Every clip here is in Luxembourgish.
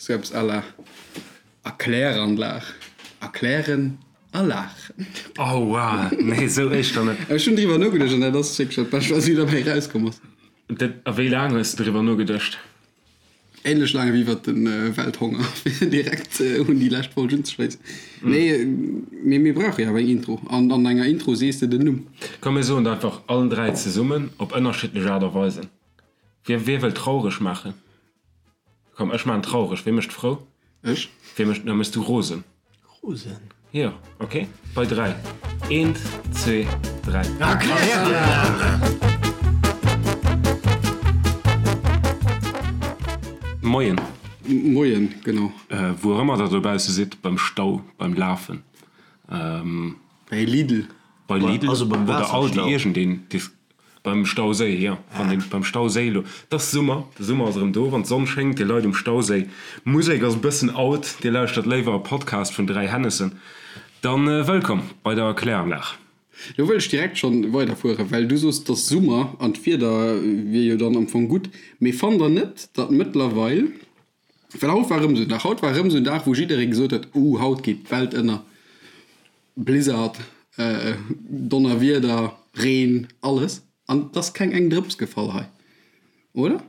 Sou eppes à la Erkläranlag, erklären a laachen. Oh wow, nee sou éischter net. Ech hunn driwwer nogeduecht an dat ass wierklech dat Bescht wat mir derbäi erauskomm ass. Dat, a wéi laang hues de driwwer nogeduecht? Ähnlech laang wéi iwwert de Welthonger, fir direkt un déi lescht Folg unzeschléissen. Nee, mee mir brauche jo awer eng Intro an an enger Intro sees de den Numm. Komm mir soen et einfach allen 3 zesummen op ënnerschiddlech Aart a Weisen. Wie, wie wëll traureg maachen? Komm, ech maachen traureg. Wie mécht frou? Ech. Wie mécht, da méchs du rosen. Rosen? Jo, ok. Bei 3. Eent, zwee, 3. Moien. Moien, genau. Wou och ëmmer der dobausse sidd, beim Stau, beim Lafen. Bei Lidl. Bei Lidl oder Aldi, iergendeen. Beim Stauséi, jo, wann een beim Stauséi elo, et ass Summer, de Summer ass erëm do, wann d'Sonn schéngt, dir leit um Stauséi, d'Musek ass e bëssen out, dir lauschtert léiwer e Podcast vun 3 Hennessen, dann wëllkomm bei der Kläranlag. Lo wëll ech direkt schonn weiderfueren, well du soos, et ass Summer an d'Wieder wier jo dann am Fong gutt, mee fannt der net, datt mëttlerweil, well haut war erëm esou en Dag, haut war erëm esou en Dag, wou jidderee gesot huet, uh, haut geet d'Welt ënner, Blizzard, Donnerwieder, Reen, alles. An et ass keng eng Drëps gefall hei, oder?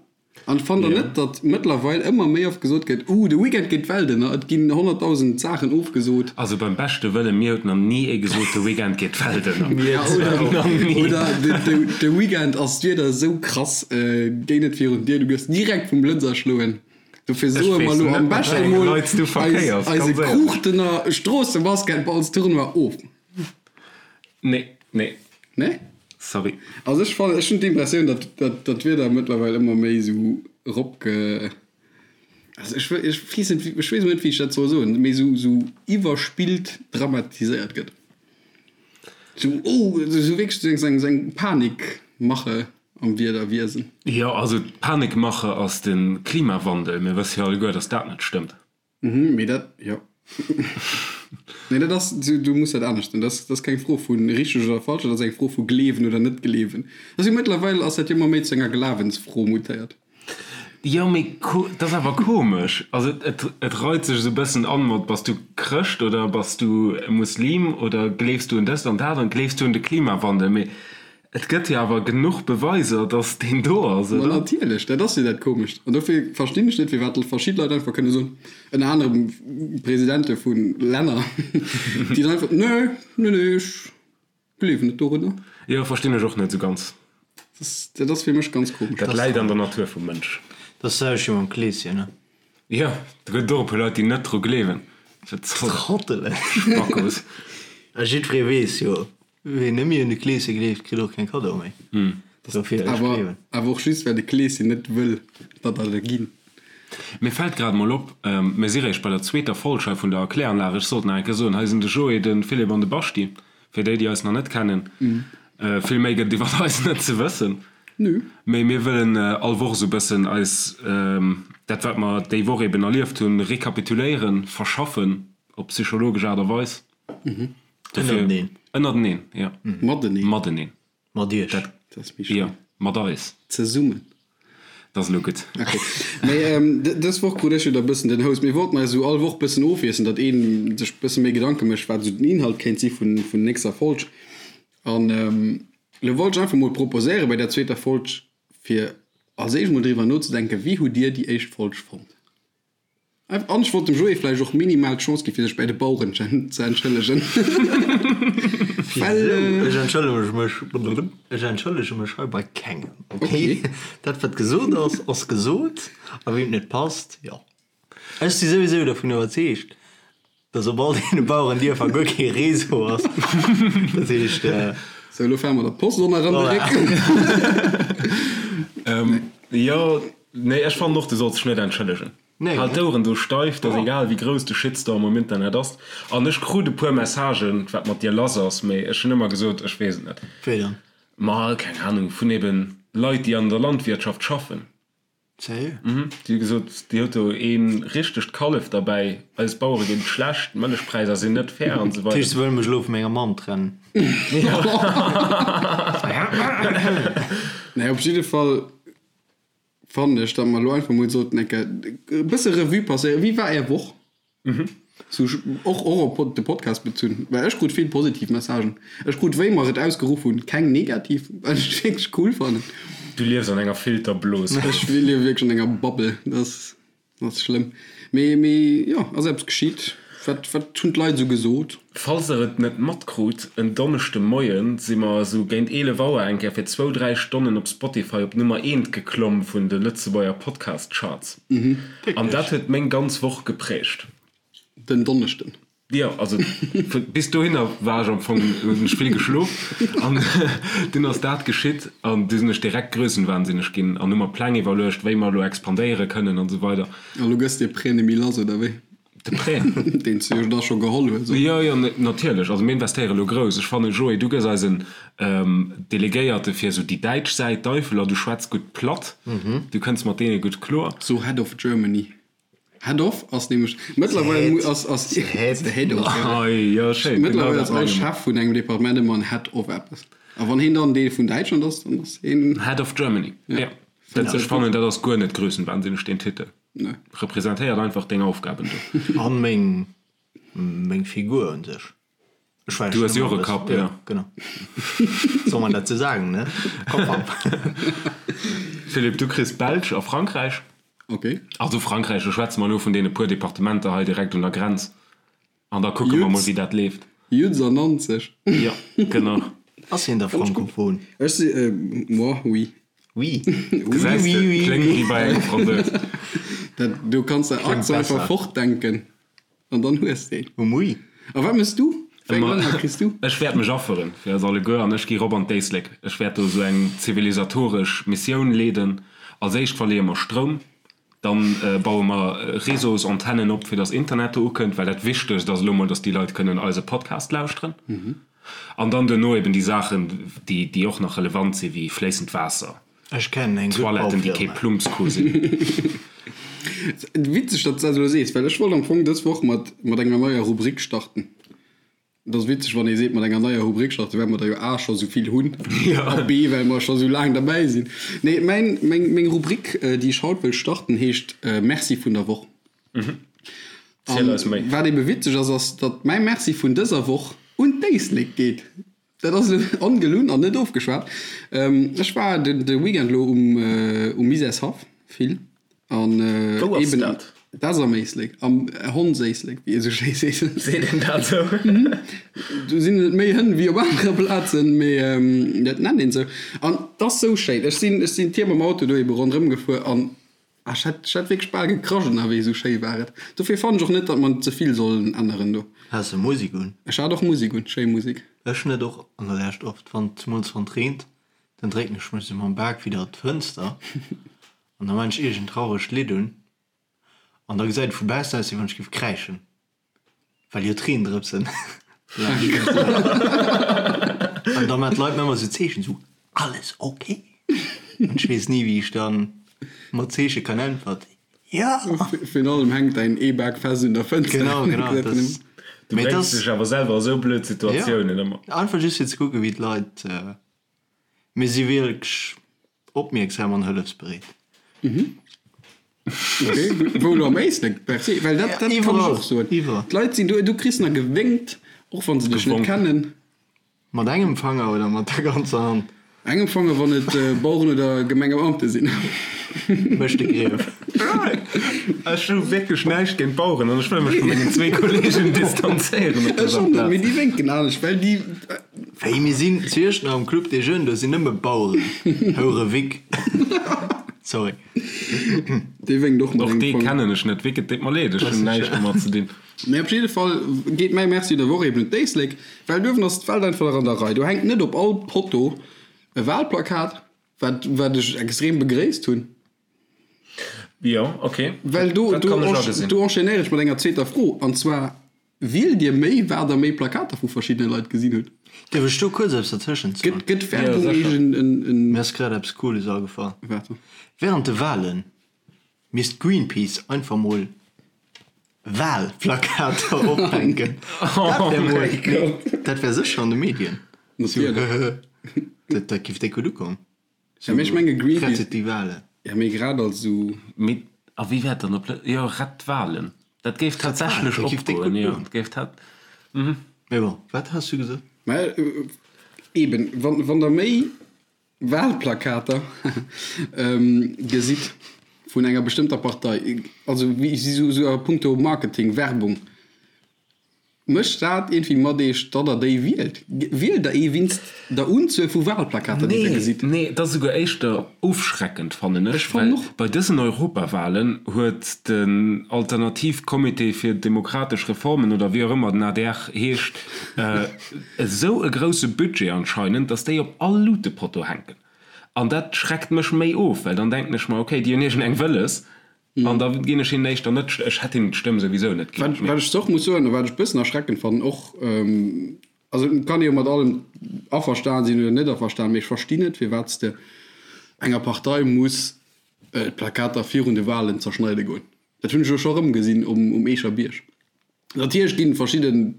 An fannt der net, datt mëttlerweil ëmmer méi oft gesot gëtt, Uh, de Weekend geet d'Welt ënner, et ginn 100.000 Saachen ofgesot. Also beim beschte Wëllen, mir huet nach ni ee gesot, de Weekend geet d'Welt ënner. Ja, oder, oder de Weekend ass d'Wieder esou krass, géi net virun d'Dier, du gëss direkt vum Blëtz erschloen. Dofir soe mer elo am beschte mol eise Kruuchtener Stroossebasketballstournoi of. Nee, nee. Nee? Sorry. Also ech fannen, ech hunn d'Impressioun, datt datt d'Wieder mëttlerweil ëmmer méi esou eropge, also ech wëll, ech weess net, ech weess net, wéi ech dat soll soen, méi esou esou iwwerspillt dramatiséiert gëtt. Esou, oh, esou wierklech esou eng esou eng Panikmache. Am Wiederwiesen. Jo, also d'Panikmache ass de Klimawandel. Mir wësse jo alleguer, datt dat net stëmmt. Mhm, mee dat, jo. Nee, dat ass, du, du muss dat anescht soen. Dat ass keng Fro vu richteg oder falsch, dat ass eng Fro vu gleewen oder net gleewen. Dat ass jo mëttlerweil ass dat jo ëmmer méi zu enger Glawensfro mutéiert. Jo, mee dat ass awer komesch. Also et, et reit sech esou e bëssen an mat, bass du Chrëscht oder bass du Muslim oder gleefs du un dëst an dat an gleefs du un de Klimawandel? Mee Et gëtt jo awer genuch Beweiser, dass deen do ass, Ma oder? natierlech, dat ass jo dat Komescht. An dofir verstinn ech net, firwat verschidde Leit einfach kënne soen, ënner anerem Presidente vu Länner, déi dann einfach, Nee, nee, nee, ech gleewen net dorunner. Jo, verstinn ech och net esou ganz. Dat ass fir mech ganz komesch. Dat läit an der Natur vum Mënsch. Dat ass d'selwecht wéi mam Kleeschen, ne? Jo, do gëtt et och e puer Leit, déi net dru gleewen. Wat soll dat? Trottelen. Spackos. A jiddweree weess jo, Ween net méi un de Kleeschen gleeft, kritt och keng Kaddoe méi. Dofir, ech gleewen. Awer och just, well de Kleeschen net wëll, datt der der ginn. Mir fält grad mol op, mir si réischt bei der zweeter Folg hei vun der Erkläranlag. Ech sollt nach eng Kéier soen, hei sinn de Joé, de Philippe an de Baschi, fir déi, déi eis nach net kennen. Vill méi gëtt et iwwer eis net ze wëssen. Mee mir wëllen all Woch esou e bëssen eis dat, wat mer déi Woch eben erlieft hunn, rekapituléieren, verschaffen op psychologesch Aart a Weis. Ënnerteneen. Ënnerteneen, jo. Mateneen. Mateneen. Mat iech. Dat, Dat ass méi schéin. Jo, mat eis. Zesummen. Dat ass elo gutt. Ok. Mee dës Woch krut ech jo da bëssen den Host. Mir wollten eis esou all Woch bëssen ofwiesselen, datt een sech bësse méi Gedanke mécht, wat esou den Inhalt kéint si vun vun nächster Folg. An elo wollt ech einfach mol proposéiere bei der zweeter Folg, fir als éischt mol driwwer nozedenken, wéi hutt Dir déi éischt Folg fonnt? An ech wollt dem Joé vläicht och minimal d'Chance ginn, fir sech bäi de Baueren ze entschëllegen. Well. Ech entschëllege mech, ech entschëllege mech hei bei kengem, ok? Dat wat gesot ass, ass gesot, a weem et net passt, jo. Ech si souwisou dovun iwwerzeegt, dass op all deene Bauerendierfer guer kee Réseau ass. Dat heescht. Sou, elo fare mer der Post och nach an de Réck. Jo. Nee, ech fannen och, du solls dech net entschëllegen. Nee. Hal d'Oueren do steif, 't ass egal wéi grouss de Shitstorm um Internet ass. An ech krut e puer Messagen, wat mat dir lass ass, mee ech hunn ëmmer gesot, ech weess et net. Wéi dann? Ma keng Ahnung, vun eben Leit, déi an der Landwirtschaft schaffen. Sérieux? Mhm, déi hu gesot, dir hutt do ee richtegt Kallef derbäi, eis Bauere geet et schlecht, d'Mëllechpräisser sinn net fair an esou Dat heescht, weider. se wëlle mech elo vu menger Mamm trennen? Nee, op jidde Fall. fannen ech, datt mer elo einfach mol sollten eng Kéier e bësse Revue passéieren. Wéi war Är Woch? Sou och och op de Podcast bezunn, well ech krut vill positiv Messagen. Ech krut, wéi mer et ausgeruff hunn, keng negativ, wat ech wierklech cool fannen. Du liefs an enger Filterblos. Ech liewe wierklech an enger Bubble. Dat ass dat ass schlëmm. Mee mee jo, ass eppes geschitt? Wat wat hunn d'Leit esou gesot? Falls der et net matkrut, en Donneschde Moien si mer esou géint 11 Auer eng Kéier fir zwou, dräi Stonnen op Spotify op Nummer eent geklomm vun de Lëtzebuerger Podcast Charts. An dat huet meng ganz Woch geprägt. Den Donneschden? Jo, also bis dohinner war ech am Fong, hunn ech vill geschlof an dunn ass dat geschitt an du sinn ech direkt grössenwahnsinneg ginn an hu mer Pläng iwwerluecht, wéi mer elo expandéiere kënnen an esou weider. A lo gëss de Prêt nemme lass, oder wéi? De Prêt? Deen s du jo da scho geholl hues, oder? Jo, jo, natierlech. Also mir investéiere lo grouss. Ech fannen, Joé, du gëss eisen Delegéierte fir esou déi däitsch Säit, d'Eifeler. Du schwätz gutt Platt, du kënns mat deene gutt kloer. So Head of Germany. Head of ass nämlech mëttlerweil ass ass The Head. The Head of, jo. Ei, jo, schéin. Genau Mëttlerweil dat ass all menge mer. Chef vun engem Departement ëmmer en Head of eppes. A wann heen dann dee vun Däitschland ass, dann ass heen. Head of Germany, jo. Dat, ech fannen, dat ass guer net grössenwahnsinneg, deen Titel. Nee. Representéiert einfach deng Aufgaben do. An meng, meng Figur un sech. Ech war Du hues jo och e Kapp, jo. Genau. Soll man dat sou sagen, ne? Kopp ab. Philippe, du kriss d'Belsch a Frankräich. Ok. Also Frankräich, do schwätze mer elo vun deene puer Departementer hei direkt un der Grenz. An da kucke mer mol, wéi dat leeft. Jutz an Nanzeg. Jo, genau. Ass hien da frankophon? Ech si, moi, oui. Oui. Gesäis de, kléngt wéi bei engem Fransous. Dat, do kanns de Accent einfach fortdenken an dann hues de een. Oui. A wat méchs du? Wéi eng Länner kriss du? Ech wäert mech afferen fir eis alleguer an ech gi rop an d'Éislek. Ech wäert do esou eng zivilisatoresch Missioun leeden. Als éischt verleeë mer Stroum, dann baue mer Réseausantennen op, fir dass Internet do ukënnt, well dat Wichtegst ass elo mol, dass déi Leit kënnen eise Podcast lauschteren. An dann duerno eben déi Saachen, déi, déi och nach relevant sinn, wéi fléissend Waasser, Ech kennen eng gutt Toiletten, déi kee Baufirma. Plumpsko sinn. Witzeg, datt s de dat elo sees, well ech wollt am Fong dës Woch mat, mat enger neier Rubrik starten. Et ass witzeg, wann ee seet, mat enger neier Rubrik starten, well mer der jo A scho sou vill hunn a B, well mer scho sou laang derbäi sinn. Nee, mäin, meng, meng Rubrik, déi ech haut wëll starten, heescht Merci vun der Woch. Ziel eis méi. Wat ebe witzeg ass, ass, datt mäi Merci vun dëser Woch un d'Éislek geet. Dat ass elo ongelunn an net ofgeschwat. Ech war de Weekend elo um Misärshaff vill an Wou ass eben dat? Dat ass am Éislek, am Hondséislek, wéi ee sou schéi seet. Seet een dat sou? Do sinn et méi Hënn wéi op anere Plazen, mee dat nennt een sou. An 't ass sou schéin. Ech sinn, ech sinn d'Tier mam Auto do ebe ronderëm gefuer an Ah, ech hätt, ech hätt wierklech bal gekrasch ënnerwee, esou schéi war et. Dofir fannen ech och net, datt mer ze vill sollen änneren do. Has de Musik un? Ech hat och Musik un, schéi Musik. Ech net och an der Lescht oft, wann, zemools wann et reent, dann drécken ech mech sou mam Bak widder d'Fënster an da man ech iergend trauregt Lidd un an da gesäit et vu baussen aus wéi wann ech géif kräischen. Well jo d'Reendrëpsen An da maan d'Leit mir ëmmer sou Zeechen, sou, Alles ok? An ech weess ni, wéi ech dann mat Zeeche kann äntwert, Jo! Virun allem hänkt däin E-Bak fest un der Fënster. Genau, genau. Das, Du bréngs dech awer selwer a sou blöd Situatiounen ëmmer. Einfach just fir ze kucken, wéi d'Leit. Mir si wierklech opmierksam an hëllefsbereet. Ok, wou elo am Éislek per se, well dat, dat kann ech och soen. Iwwerall. D'Leit sinn do, du kriss nach gewénkt, och wann se dech net Gewonk. kennen. Mat engem Fanger oder mat der ganzer Hand? Engem Fanger, wann et Baueren oder Gemengebeamte sinn. Mécht de Grief. Ech hu wierklech näischt géint Baueren an ech wëll mech vu mengen zwee Kollegen distanzéieren op Ech dëser och net, Plaz. mee déi wénken anescht, well déi. Wéi, mir sinn zu Iechternach am Club des Jeunes, do sinn nëmme Baueren. Houre Vic. Sorry. Dee wénkt och mat Och engem dee Fanger. kennen ech net. Vic, et deet mer leed, ech hunn näischt domat ze dinn. Mee op jidde Fall geet mäi Merci der Woch eben un d'Éislek, well duerwen ass d'Welt einfach nach an der Rei. Do hänkt net op all Potto e Wahlplakat, wat, wat ech extrem begréisst hunn. Jo, ok. Well do, Dat do, kann ech agesinn. do enchaînéiere ech mat enger zweeter Fro, an zwar, Wielt Dir méi, wat Der méi Plakater vu verschiddene Leit gesinn hutt? Dierf ech do kuerz eppes dertëschent soen? Gëtt, gëtt Werbung Ja, sécher. eegen en, en. Mir ass grad eppes Cooles agefall. Wat dann? Während de Wahlen misst Greenpeace einfach mol Wahlplakater ophänken. Dat wär mol, nee, dat wär sécher an de Medien. Natierlech. Dat, dat giff déck gutt ukommen. Ja, mee ech menge Greenpeace. Rettet die Wale. Ja, mee grad als esou. Mee a wéi wär et dann op Lë-, jo, rett d'Walen. Dat géif tatsächlech Dat géif déck opgoen, gutt jo. goen. Dat géif tat, mhm. Mee bon, wat has du gesot? Mä eben, wann, wann Der méi Wahlplakater gesitt vun enger bestëmmter Partei, also wéi esou, esou a puncto Marketing, Werbung, Mécht dat iergendwéi mat Iech, datt Der déi wielt? Wielt Der ee winst der Unzuel vu Wahlplakater, déi Der gesitt? Nee, et ass esouguer éischter ofschreckend, fannen ech, Ech fannen well och. bei dësen Europawahlen huet den Alternativcomité fir demokratesch Reformen, oder wéi och ëmmer den adr heescht, esou e grousse Budget anscheinend, datt déi op all Lutepotto hänken. An dat schreckt mech méi of, well dann denken ech mer, okay, déi hunn iergendeng wëlles, An da ginn ech hinnen éischter net, ech hätt hinnen d'Stëmm souwisou net ginn. Wat ech och muss soen, a wat ech e bëssen erschreckend fannen och, also et kann ee jo mat allem averstan sinn oder net averstan, mee ech verstinn net, firwat s de enger Partei muss d'Plakater virun de Wahlen zerschneide goen. Dat hunn ech elo scho erëm gesinn um Eecher Bierg. Natierlech ginn verschidden,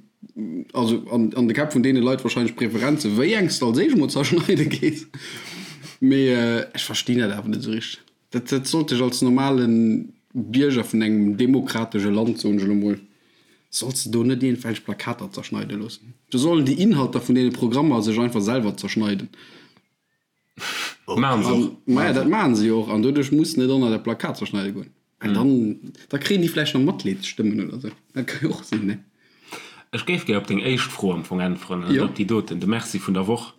also an de Käpp vun deene Leit wahrscheinlech Preferenzen, wéi eng s de als éischt emol zerschneide gees, mee ech verstinn dat awer net esou richteg. Dat dat sollt dech als normale Bierger vun engem demokratesche Land, soen ech elo mol, solls de do net iergendwelch Plakater zerschneide loossen. Do sollen déi Inhalter vun deene Programmer sech einfach selwer zerschneiden. Maachen se och. Maja, dat maachen se jo och an doduerch muss net ënner dat Plakat zerschneide goen. Well dann, da kréien déi vläicht nach Matleedsstëmmen oder sou. Dat ka jo och sinn, ne? Ech géif gär op deng éischt Fro am Fong äntweren, an net op déi doten, de Merci vun der Woch.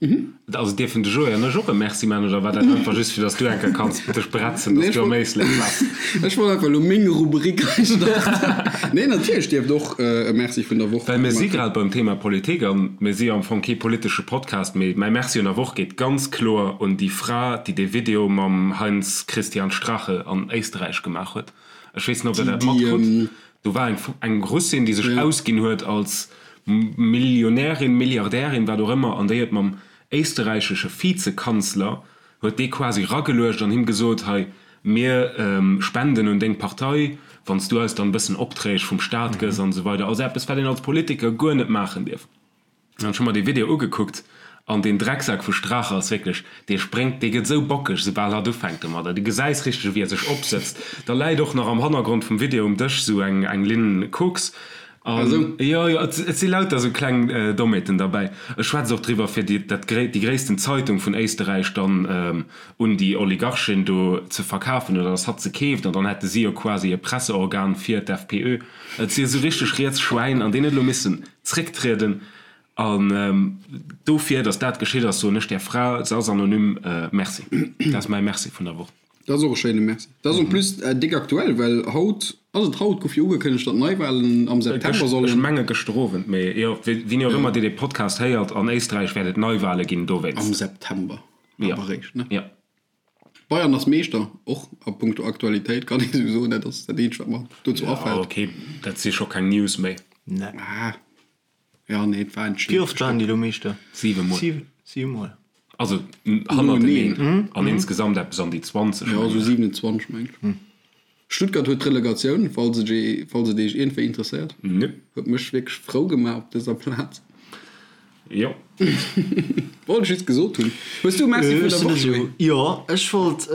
Also dierfen de Joé an ech och e Merci maachen, oder war dat einfach just fir datt s du eng Kéier kanns dech bretzen, datt s du am Éislek waars? Ech wollt einfach elo meng Rubrik hei starten. Nee, natierlech dierft och e Merci vun der Woch Well mir si grad beim Thema Politik an mir si jo am Fong kee politesche Podcast, mee mäi Merci un der Woch geet ganz kloer un déi Fra, déi dee Video mam Heinz Christian Strache an Éisterräich gemaach huet. Ech weess net, ob der dat matkrut. Do war eng eng Russin, déi sech ausginn huet als Millionärin, Milliardärin, wat och ëmmer, an déi huet mam éisterräichesche Vizekanzler, huet dee quasi rageluecht an him gesot, hei, mir spenden un deng Partei, wann s du eis dann e bëssen Opträg vum Staat gëss an esou weider. Also eppes, wat een als Politiker guer net maachen dierf. An ech hu mer dee Video ugekuckt an deen Drecksak vu Strache ass wierklech, dee spréngt, dee gëtt esou bockeg, soubal hatt ufänkt domadder. Du gesäis richteg, wéi e sech opsëtzt. Da läit och nach am Hannergrond vum Video um Dësch esou eng, eng Linn Koks. An jo, jo, et, et si lauter esou kleng Dommheeten derbäi. E schwätzt och driwwer, fir déi, dat gréi, déi gréissten Zeitung vun Éisterräich dann un déi Oligarchin do ze verkafen oder dass hatt se keeft an dann hätte si jo quasi e Presseorgan fir d'FPÖ. Et si esou richteg riets Schwäin an deen huet elo missen zrécktrieden an dofir, datt dat geschitt ass, soen ech där Fra, se ass anonym, Merci. Dat ass mäi Merci vun der Woch. Dat ass och e schéine Merci. Dat ass en plus déck aktuell, well haut, ass et haut, gouf jo ugekënnegt, datt Neiwahlen am September sollen. Ech menge gëschter Owend, mee jo, wéini och ëmmer Dir dee Podcast héiert, an Éisträich wäert et Neiwahle ginn dowéinst. Am September awer eréischt, ne? Jo. Bayern ass Meeschter, och a punkto Aktualitéit kann ee sou soen. Dat ass dat eenzegt wat mer dozou afält. Jo ok, dat si scho keng News méi. Nee. Ah, ja nee, et war entscheet. Wéi oft waren déi elo Meeschter? Siwe Mol. Siwe Mol. Also hannerteneen an insgesamt eppes an déi 20. Jo, sou 27 meng ech. Stuttgart huet d'Relegatioun, falls et ee, falls et eech iergendwéi interesséiert. Nö. Huet mech wierklech frou gemaach op dëser Plaz. Jo. Wollt ech just gesot hunn. Hues du e Merci vun der Woch, Joé? Jo, ech wollt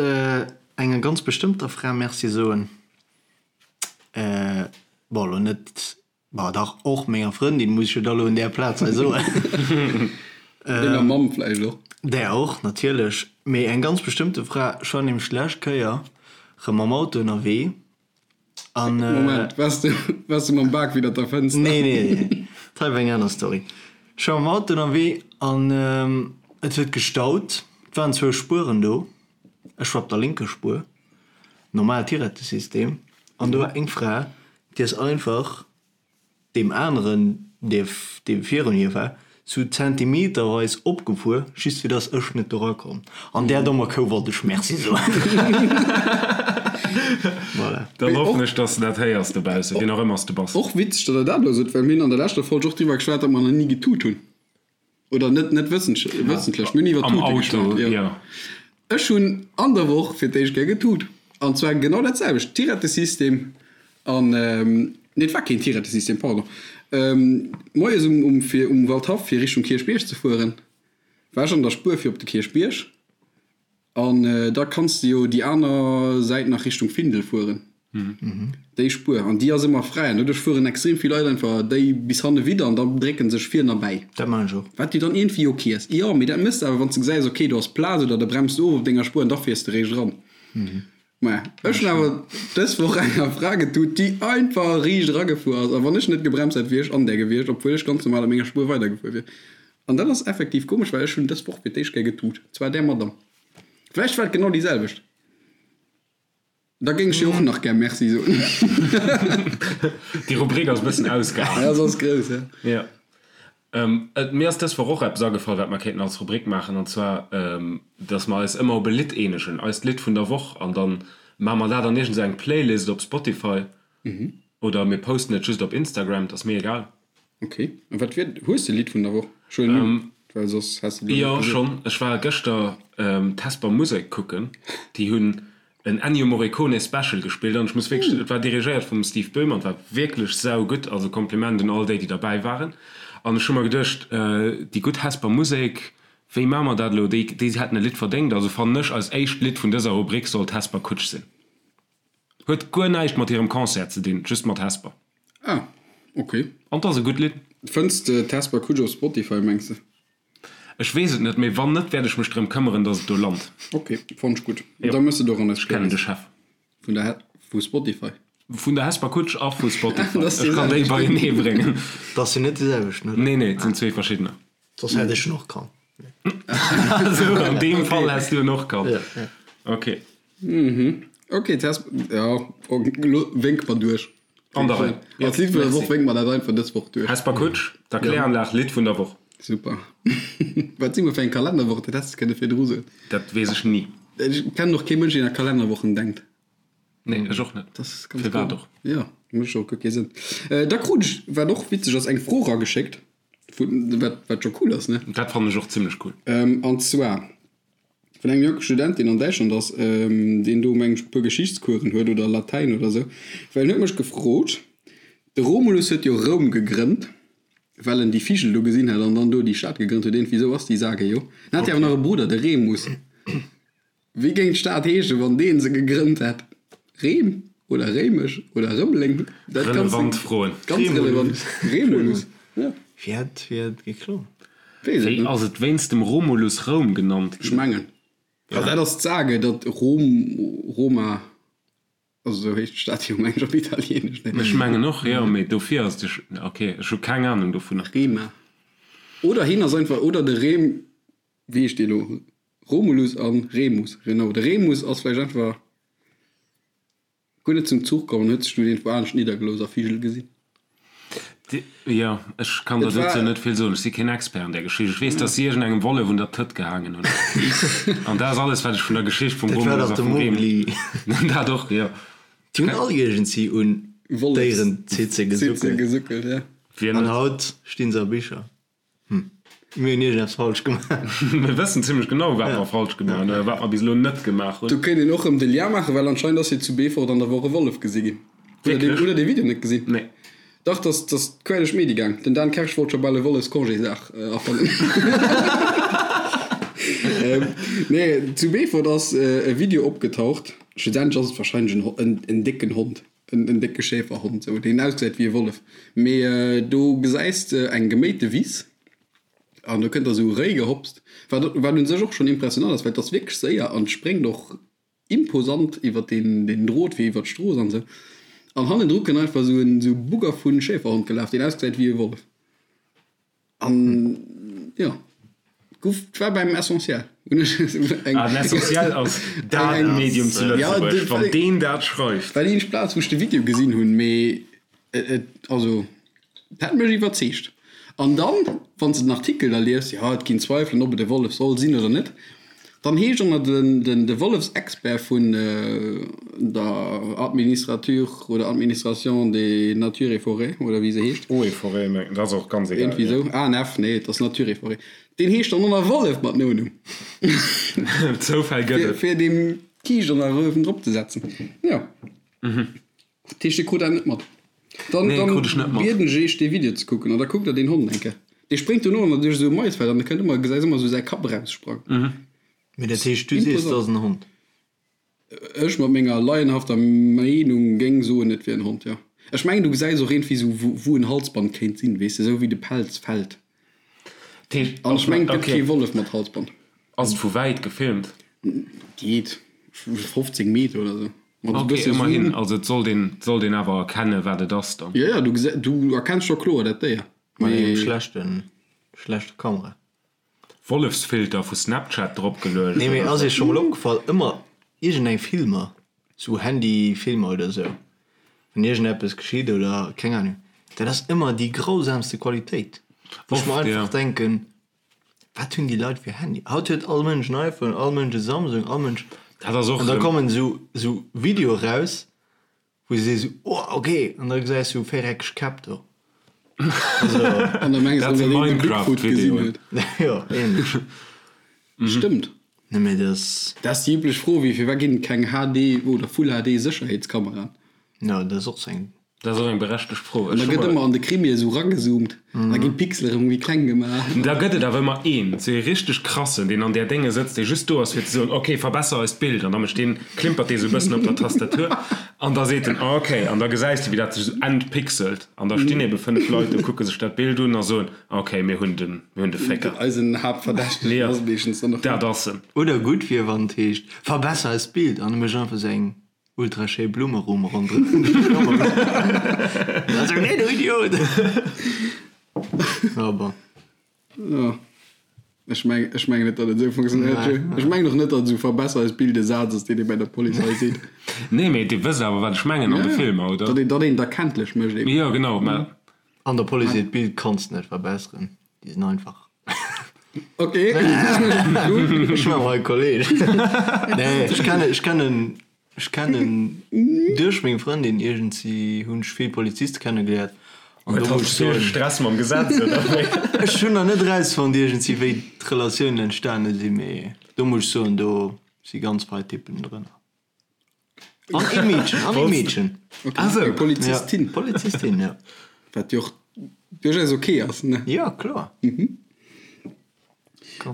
enger ganz bestëmmter Fra Merci soen. Bon, elo net Bah dach, och menger Frëndin, muss ech jo da lo un där Plaz hei soen. Denger Mamm vläicht och. Där och, natierlech. Mee eng ganz bestëmmte Fra. Ech war nämlech d'lescht Kéier rëm mam Auto ënnerwee an. Moment, waars de, waars de mam Bak widder der Fënster? Nee, nee, nee, dat hei war eng aner Story. Ech war mam Auto ënnerwee an et huet gestaut. Et waren zwou Spueren do. Ech war op der lénker Spuer, normaalt Tirettesystem, an do war eng Fra, déi ass einfach deem aneren, dee dee virun hir war, sou zentimeterweis opgefuer, just fir dass ech net do erakomm. An där dommer Kou wollt ech Merci soen. Voilà. Dann hoffen ech, dass de dat héiers dobaussen, wien och ëmmer s de bass. Och witzeg, datt der dat elo sot, well mir hunn an der leschter Folg och driwwer geschwat, datt mer nach ni getut hunn. Oder net, net wëssentlech, mir hunn iwwer Am Tute Auto, geschwat, jo. jo. Ech hunn an der Woch fir d'éischt Kéier getut. An zwar genau dat selwecht, Tirettesystem an, nee, et war keen Tirettesystem, pardon. Moies um, um, fir um Waldhaff fir Richtung Kierchbierg ze fueren, war ech an der Spuer fir op de Kierchbierg. An da kanns de jo déi aner Säit nach Richtung Findel fueren, déi Spuer. An déi ass ëmmer fräi. An doduerch fueren extrem vill Leit einfach déi bis hanne widder an da drécke sech vir erbäi. Dat maachen ech och. Wat jo dann iergendwéi ok ass. Jo, mee dat méchs de awer, wann s de gesäis, ok, do ass Plaz oder de bremst of op denger Spuer an da fiers de réischt eran. Maja, ech hunn awer dës Woch enger Fra getut, déi einfach riicht eragefuer ass. A wann ech net gebremst hätt, wier ech an där gewiescht, obwuel ech ganz normal op menger Spuer weidergefuer wier. An dat ass effektiv komesch, well ech hunn dës Woch fir d'éischt Kéier getut. Zwar där Madame. Vläicht war et genau déi selwecht. Da géing ech hir och nach gär Merci soen. Déi Rubrik ass e bëssen ausgeaart. Ja, se ass grouss, ja. Ja. Mir ass dës Woch och eppes agefall, wat mer kéinten als Rubrik maachen, an zwar, dass mer eis ëmmer op e Lidd eenegen, eist Lidd vun der Woch, an dann maache mer dat an iergend esou eng Playlist op Spotify oder mir posten et just op Instagram, et ass mir egal. Ok, a wat wier, hues de e Lidd vun der Woch? Ech huelen un, well soss häss de et elo net gesot. Jo, schonn. Ech war gëschter d'Hesper Musek kucken, déi hunn en Ennio Morricone Special gespillt an ech muss wierklech, et war dirigéiert vum Steve Böhm an et war wierklech saugutt, also Kompliment un all déi déi derbäi waren an ech hu mer geduecht, déi gutt Hesper Musek, wéi maache mer dat elo, déi déi hätten e Lidd verdéngt, also fannen ech eist éischt Lidd vun dëser Rubrik sollt Hesper Kutsch sinn. Huet guer näischt mat hirem Concert ze dinn, just mat Hesper. Ah, ok. An 't ass e gutt Lidd. Fënns de d'Hesper Kutsch op Spotify, mengs de? Ech weess et net, mee wann net, wäert ech mech drëm këmmeren, dass et do lant. Ok, fonnt ech gutt. Da mëss et och an eis Ech kennen de Chef. Vun der vu Spotify. Vun der Hesper Kutsch a vu Spotify. Ech kann déi beienee bréngen. Dat sinn net déi selwecht, oder? Nee, nee, et sinn zwee verschiddener. Soss hätt ech en och kannt. Esou, an deem Fall häss du en och kannt. Ok. Ok, d'Hesper, jo, elo wénk mer duerch. An der Rei. Als Lidd vun der Woch wénke mer dat einfach dës Woch duerch. Hesper Kutsch, d'Erkläranlag, Lidd vun der Woch. Super. Wat si mer fir eng Kalennerwoch? Dat häss de kënne virdru soen. Dat weess ech ni. Ech kennen och kee Mënsch, deen a Kalennerwochen denkt. Nee, ech och net. Dat ass ganz Firwat och? Jo, mécht och guer kee Sënn. Da krut ech, wat och witzeg ass, eng Fro erageschéckt, vun, wat, wat scho cool ass, ne? Dat fannen ech och zimmlech cool. An zwar Vun engem jonke Student, deen an Däitschland ass, deen do mengen ech e puer Geschichtscoursen huet oder Latäin oder esou, well en huet mech gefrot, de Romulus huet jo Roum gegrënnt, well en déi Vigel do gesinn hat an dann do déi Stad gegrënnt huet, iergendwéi esou ass déi Sage jo. En hat jo awer nach e Brudder, de Remus. Wéi géing d'Stad heeschen, wann dee se gegrënnt hätt? Reem oder Réimech oder Rëmeleng? Dat ganz, Relevant Froen. Ganz relevant. Remulus, ja. Wéi hat geklongen? Wéi ass et wéinst dem Romulus Roum genannt ginn? Ech mengen, also dat ass d'Sage, datt Rom, Roma, also esou heescht d'Stad jo meng ech op Italieenesch, ne? Ech mengen och, jo, mee dofir ass de, ok, ech hu keng Anung dovunner. Rema. Oder hien ass einfach, oder de Rem, wéi heescht dee lo? Romulus a Remus, genau. De Remus ass vläicht einfach Guer net zum Zuch komm an huet sech dunn iergendwou anescht niddergelooss a Vigel gesinn. Jo, ech kann der dozou net vill soen. Ech si keen Expert an där Geschicht. Ech weess, dass si iergendengem Wollef un der Tëtt gehaangen hunn. An dat ass alles, wat ech vun der Geschicht vum Dat war Romulus dach a de vum Remus. Mowgli. Dat och, jo. Déi hunn all iergendsi un Déierenzitze gesuckelt. Gesuckelt, ja. Wien An net? haut stinn se a Bicher. Hm, mir hunn iergendeppes falsch gemaach. Mir wëssen zimlech genau, wat mer falsch gemaach hunn oder wat mer bis elo net gemaach hunn. Do kéint een och rëm de Lien maachen, well anscheinend ass jo zu Beefort an der Woch e Wollef gesi ginn. Hutt der dee, hutt der dee Video net gesinn? Nee. Dach, dass dass quer duerch d'Medie gaang. Den Dan Kersch wollt scho bal e Wollefscongésdag erfannen. Nee, zu Beefort ass e Video opgetaucht. Schlussendlech ass et warscheinlech en en en décken Hond. En décke Schäferhond, sou, deen ausgesäit wéi e Wollef. Mee do gesäis de eng geméite Wiss an do kënnt da sou e Réi gehopst, wat wat un sech och schonn impressionant ass, well et ass wierklech séier an spréngt och imposant iwwer deen deen Drot fir iwwer d'Strooss an sou. An hannendru kënnt einfach sou en sou Bugger vu Schäferhond gelaf, deen ausgesäit wéi e Wollef. An jo, guff, et war beim Essentiel. Hunn ech eng. Ah, den Essentiel ass dat Medium zu Lëtzebuerg, wann deen dat schreift. War déi eenzeg Plaz, wou ech de Video gesinn hunn, mee et, also, et hat mech iwwerzeegt. An dann, wann s de den Artikel da liest, jo, et ginn Zweifelen, ob et e Wollef soll sinn oder net, Dann heescht och nach den de Wollefsexpert vun der Administrature oder Administration des Nature et Forêts oder wéi se heescht. Eau et Forêts, mengen, dat ass och ganz egal. Iergendwéi esou. ANF, nee, et ass Nature et Forêts. Deen heescht dann och nach Wollef mat Nonumm. Zoufäll gëtt et. Fir deem Kiischt an der Röwen drop ze setzen. Jo. Dat heescht, Dir krut dat net mat? Dann, Nee, dann krut ech net mat. bieden ech Iech, dee Video ze kucken an da kuckt der deen Hond eng Kéier. Dee spréngt dono an duerch esou e Maisfeld an da kënnt ëmmer, gesäis ëmmer esou säi Kapp eraussprangen. Mee dat heescht, du sees, et ass en Hond? Ech mat menger laienhafter Meenung géing soen, et wier en Hond, jo. Ech mengen, du gesäis och iergendwéi sou, wou en Halsband kéint sinn, weess de, sou wéi de Pelz fält. An ech mengen, et gëtt kee Wollef mat Halsband. Ass et vu wäit gefilmt? Geet, 15 Meter oder sou. Mat e bësse Zoom. Ok, ëmmerhin, also et sollt een, et sollt een awer erkennen, wat et ass dann. Jo, jo, du gesäis, du erkenns scho kloer dat Déier. Mat engem schlechten, schlechte Kamera. Wollefsfilter vu Snapchat drop geluecht. Nee mee ass iech scho mol opgefall, ëmmer iergend eng Filmer, sou Handy Filmer oder sou, wann iergend eppes geschitt oder keng Ahnung, dat ass ëmmer déi grausamste Qualitéit, wou ech mer einfach denken, wat hunn déi Leit fir Handy? Haut huet all Mënsch en iPhone, all Mënsch e Samsung, all Mënsch, Dat ass och an da kommen sou sou Videoe raus, Wou se sees oh ok an da gesäis du véiereckeg Käpp do. Also an da mengs du dat een de Bigfoot gesinn huet. Jo ähnlech. Stëmmt. Nee mee dat. Dat ass déi üblech Fro wéi firwat ginn et keng HD oder Full HD Sécherheetskameraen? Jo dat ass och sou eng. Dat ass och eng berechtegt Fro. An da gëtt ëmmer an de Krimie esou ragezoomt an da ginn d'Pixel erëm méi kleng gemaach. Da gëtt et awer ëmmer een, sou ee richteg krassen, deen an där Dénge sëtzt, dee just do ass fir ze soen, ok, verbesser eist Bild. An da mécht deen, klimpert dee sou e bëssen op der Tastatur an da seet en, ok. An da gesäis de, wéi dat sech sou entpixelt. An da stinn ebe 5 Leit do, kucke sech dat Bild un a soen, ok, mir hunn den, mir hunn de Fécker. Eisen Haaptverdächtegen ass meeschtens dann och. Dat ass en. Oder gutt wier, wann et heescht, verbesser eist Bild an e mécht einfach sou eng Ultra schéi Blummerumm ronderëm dech Also nee du Idiot! Ja bon. Jo, ech meng, ech mengen net, datt et esou funktionéiert, Joe. Ech mengen och net, datt esou verbesser eist Bild e Saz ass, deen ee bei der Polizei seet. Nee, mee Dir wësst awer, wat ech mengen an de Filmer, oder? Datt een, datt een et erkenntlech mécht eben. Jo, genau, mä. An der Police hiert Bild kanns de net verbesseren, déi sinn einfach. Ok. Ech maache hei Kolleg. Nee, ech kennen, ech kennen, ech kennen duerch meng Frëndin iergendsi hunn ech vill Poliziste kennegeléiert. An do muss ech soen. Stress mam Gesetz, oder wéi? Ech hunn nach net erausfonnt iergendsi wéi d'Relatiounen entstane sinn, mee do muss ech soen, do si ganz fei Typen drënner. An ee Meedchen, an ee Meedchen. Okay. Ah, sou. Eng Polizistin. Ja, Polizistin, ja. Wat jo och duerchaus ok ass, ne? Ja, kloer. Mhm.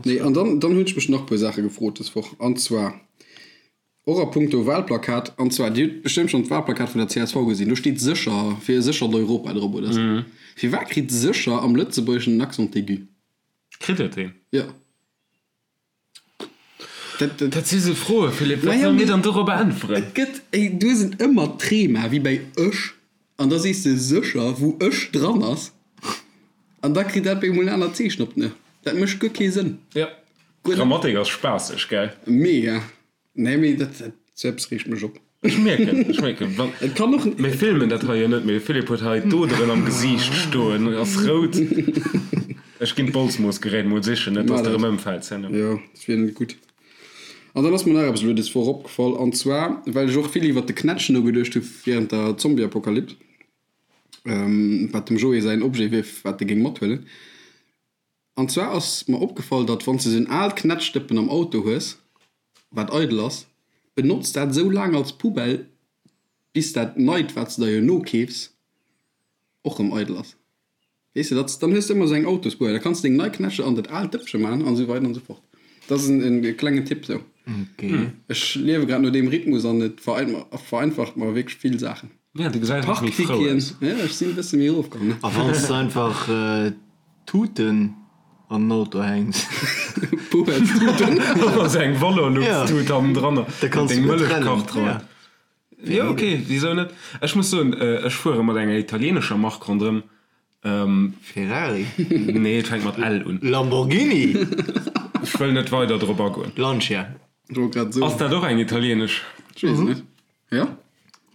Nee, an dann, dann hunn ech mech nach e puer Saache gefrot dës Woch. An zwar och a punkto Wahlplakat. An zwar, Dir hutt bestëmmt schonn d'Wahlplakat vun der csv gesinn. Do steet sécher fir e séchert Europa drop, oder sou. Firwat kritt sécher am Lëtzebuergeschen en Accent aigu? Kritt et een? Ja. Dat si sou Froen, Philippe, wat solle mir dann dorobber äntweren? Et gëtt, du hues en ëmmer d'Trema wéi bei ech, an da sees de sécher, wou ech dran ass, an da kritt dat op eemol en anert Zeechen op den e. Dat mécht guer kee Sënn. Jo, Grammatik ass spaasseg, gell? Mega. Nee, mee dat, sou eppes reegt mech op. Ech mierken, ech mierken, wann, Et kann och. Mir filmen dat hei jo net, mee de Philippe huet hei d'Oderen am Gesiicht stoen, ass rout. Ech ginn d'Bolzmoossgerät mol sichen, net dass de erëm ëmfäls herno. Jo, dat wier net gutt. An dann ass mer nach eppes elo des Woch opgefall, an zwar, well ech och vill iwwert de Knätsch nogeduecht hu während der Zombieapokalyps, wat dem Joé säin Objet wier, wat e géing mathuelen. An zwar ass mer opgefall, datt wann s de sou en aalt Knätschdëppen am Auto hues, wat eidel ass, benotz dat sou laang als Poubelle, bis dat neit, wat s de der jo nokeefs, och rëm eidel ass. Weess de, datt, dann hues de ëmmer sou eng Autospoubelle, da kanns de deng nei Knätsche an dat aalt Dëppche maachen an esou weider an esou fort. Dat ass en klengen Tipp sou. Ech liewe grad no deem Rhythmus an et vereinfacht mer wierklech vill Saachen. Ja, du gesäis och méi frou aus. Ja, ech sinn e bësse méi erofkomm, ne? A wann s de einfach Tuten an den Auto hänks. Poubellstuten. Oder sou eng Valorlux-Tut hannendranner. Da kanns du gutt Mëllechkach trennen. dran. Jo, ok, wisou net? Ech muss soen, ech fuere mat enger italienescher Mark ronderëm. Ferrari? Nee, et fänkt mat L un. Lamborghini? Ech wëll net weider drop agoen. Lancia? Ech wollt grad soen. Ass dat och eng italienesch? Ech weess et net. Jo?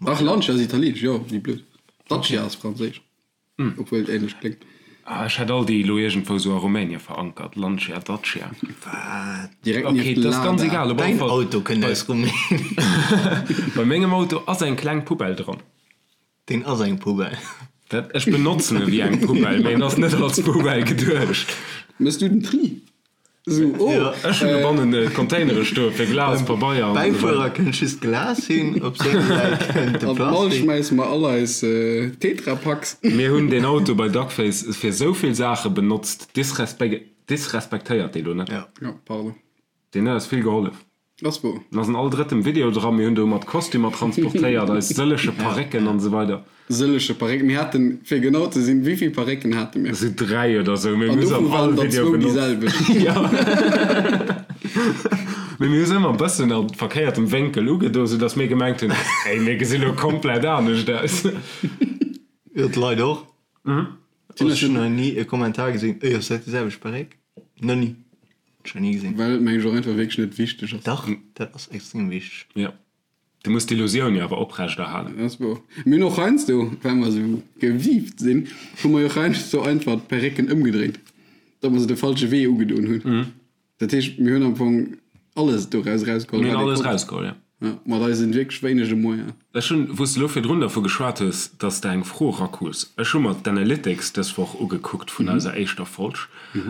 Dach, Lancia ass italienesch, jo, wéi blöd. Dacia ass franséisch, obwuel et ähnlech kléngt. Ah, ech hätt all déi elo iergendwou sou a Rumänie verankert, Lancia, Dacia. Wat? Direkt Ok, nieft dat ass ganz Lada. egal, op alle Däin Fall. Auto kënnt aus Rumänien. Bei mengem Auto ass eng kleng Poubelle dran. Deen ass eng Poubelle. Dat, ech benotzen e wéi eng Poubelle, mee en ass net als Poubelle geduecht. Mëss du den Tri? Sou, oh. Jo, ech hunn dobannen Containere stoe fir Glas, Pabeier an esou weider. Bäifuerer kënnt just d'Glas hin, op senger Säit kënnt de An d'Mall Plastik. schmäisse mer all eis Tetrapacks. Mir hunn deen Auto bei Duckface fir esou vill Saache benotzt, disrespektéiert dee lo net. Jo. Jo, pardon. Deen huet eis vill gehollef. Ass wouer. En ass an all drëttem Video dran. Mir hunn do mat Kostümer transportéiert, eis sëlleche Parécken an esou weider. Sëlleche Parécken. Mir haten, fir genau ze sinn, wéi vill Parécken hate mir? Esou 3 oder esou, mee mir hu se an all all Video benotzt. An dovun waren der zwou déi selwecht. Jo. Mee mir hu se ëmmer e bëssen a verkéiertem Wénkel ugedo, soudass mir gemengt hunn, Ey, mir gesi lo komplett anescht aus. Jo, d'Leit och. Ech hunn nach ni e Kommentar gesinn, Ey, ass dat déi selwecht Paréck? Nach ni. Ech nach ni gesinn. Well et mengen ech och einfach wierklech net wichteg ass. Dach, dat ass extrem wichteg. Jo. Du muss d'Illusioun jo awer oprecht erhalen. Dat ass wouer. Mir hunn och heiansdo, well mer esou gewiift sinn, hu mer jo och heiansdo einfach d'Perrécken ëmgedréint, datt mer se de falsche Wee ugedoen hunn. Dat heescht, mir hunn am Fong alles doraus erausgeholl, Mir hunn wat ee alles konnt. erausgeholl, jo. Ja, mat eisen wierklech wéinege Moyenen. Ech hunn, wou s de elo virdrun dervu geschwat hues, datt s de eng Fro erakrus, ech hu mer d'Analytics dës Woch ugekuckt vun eiser éischter Folg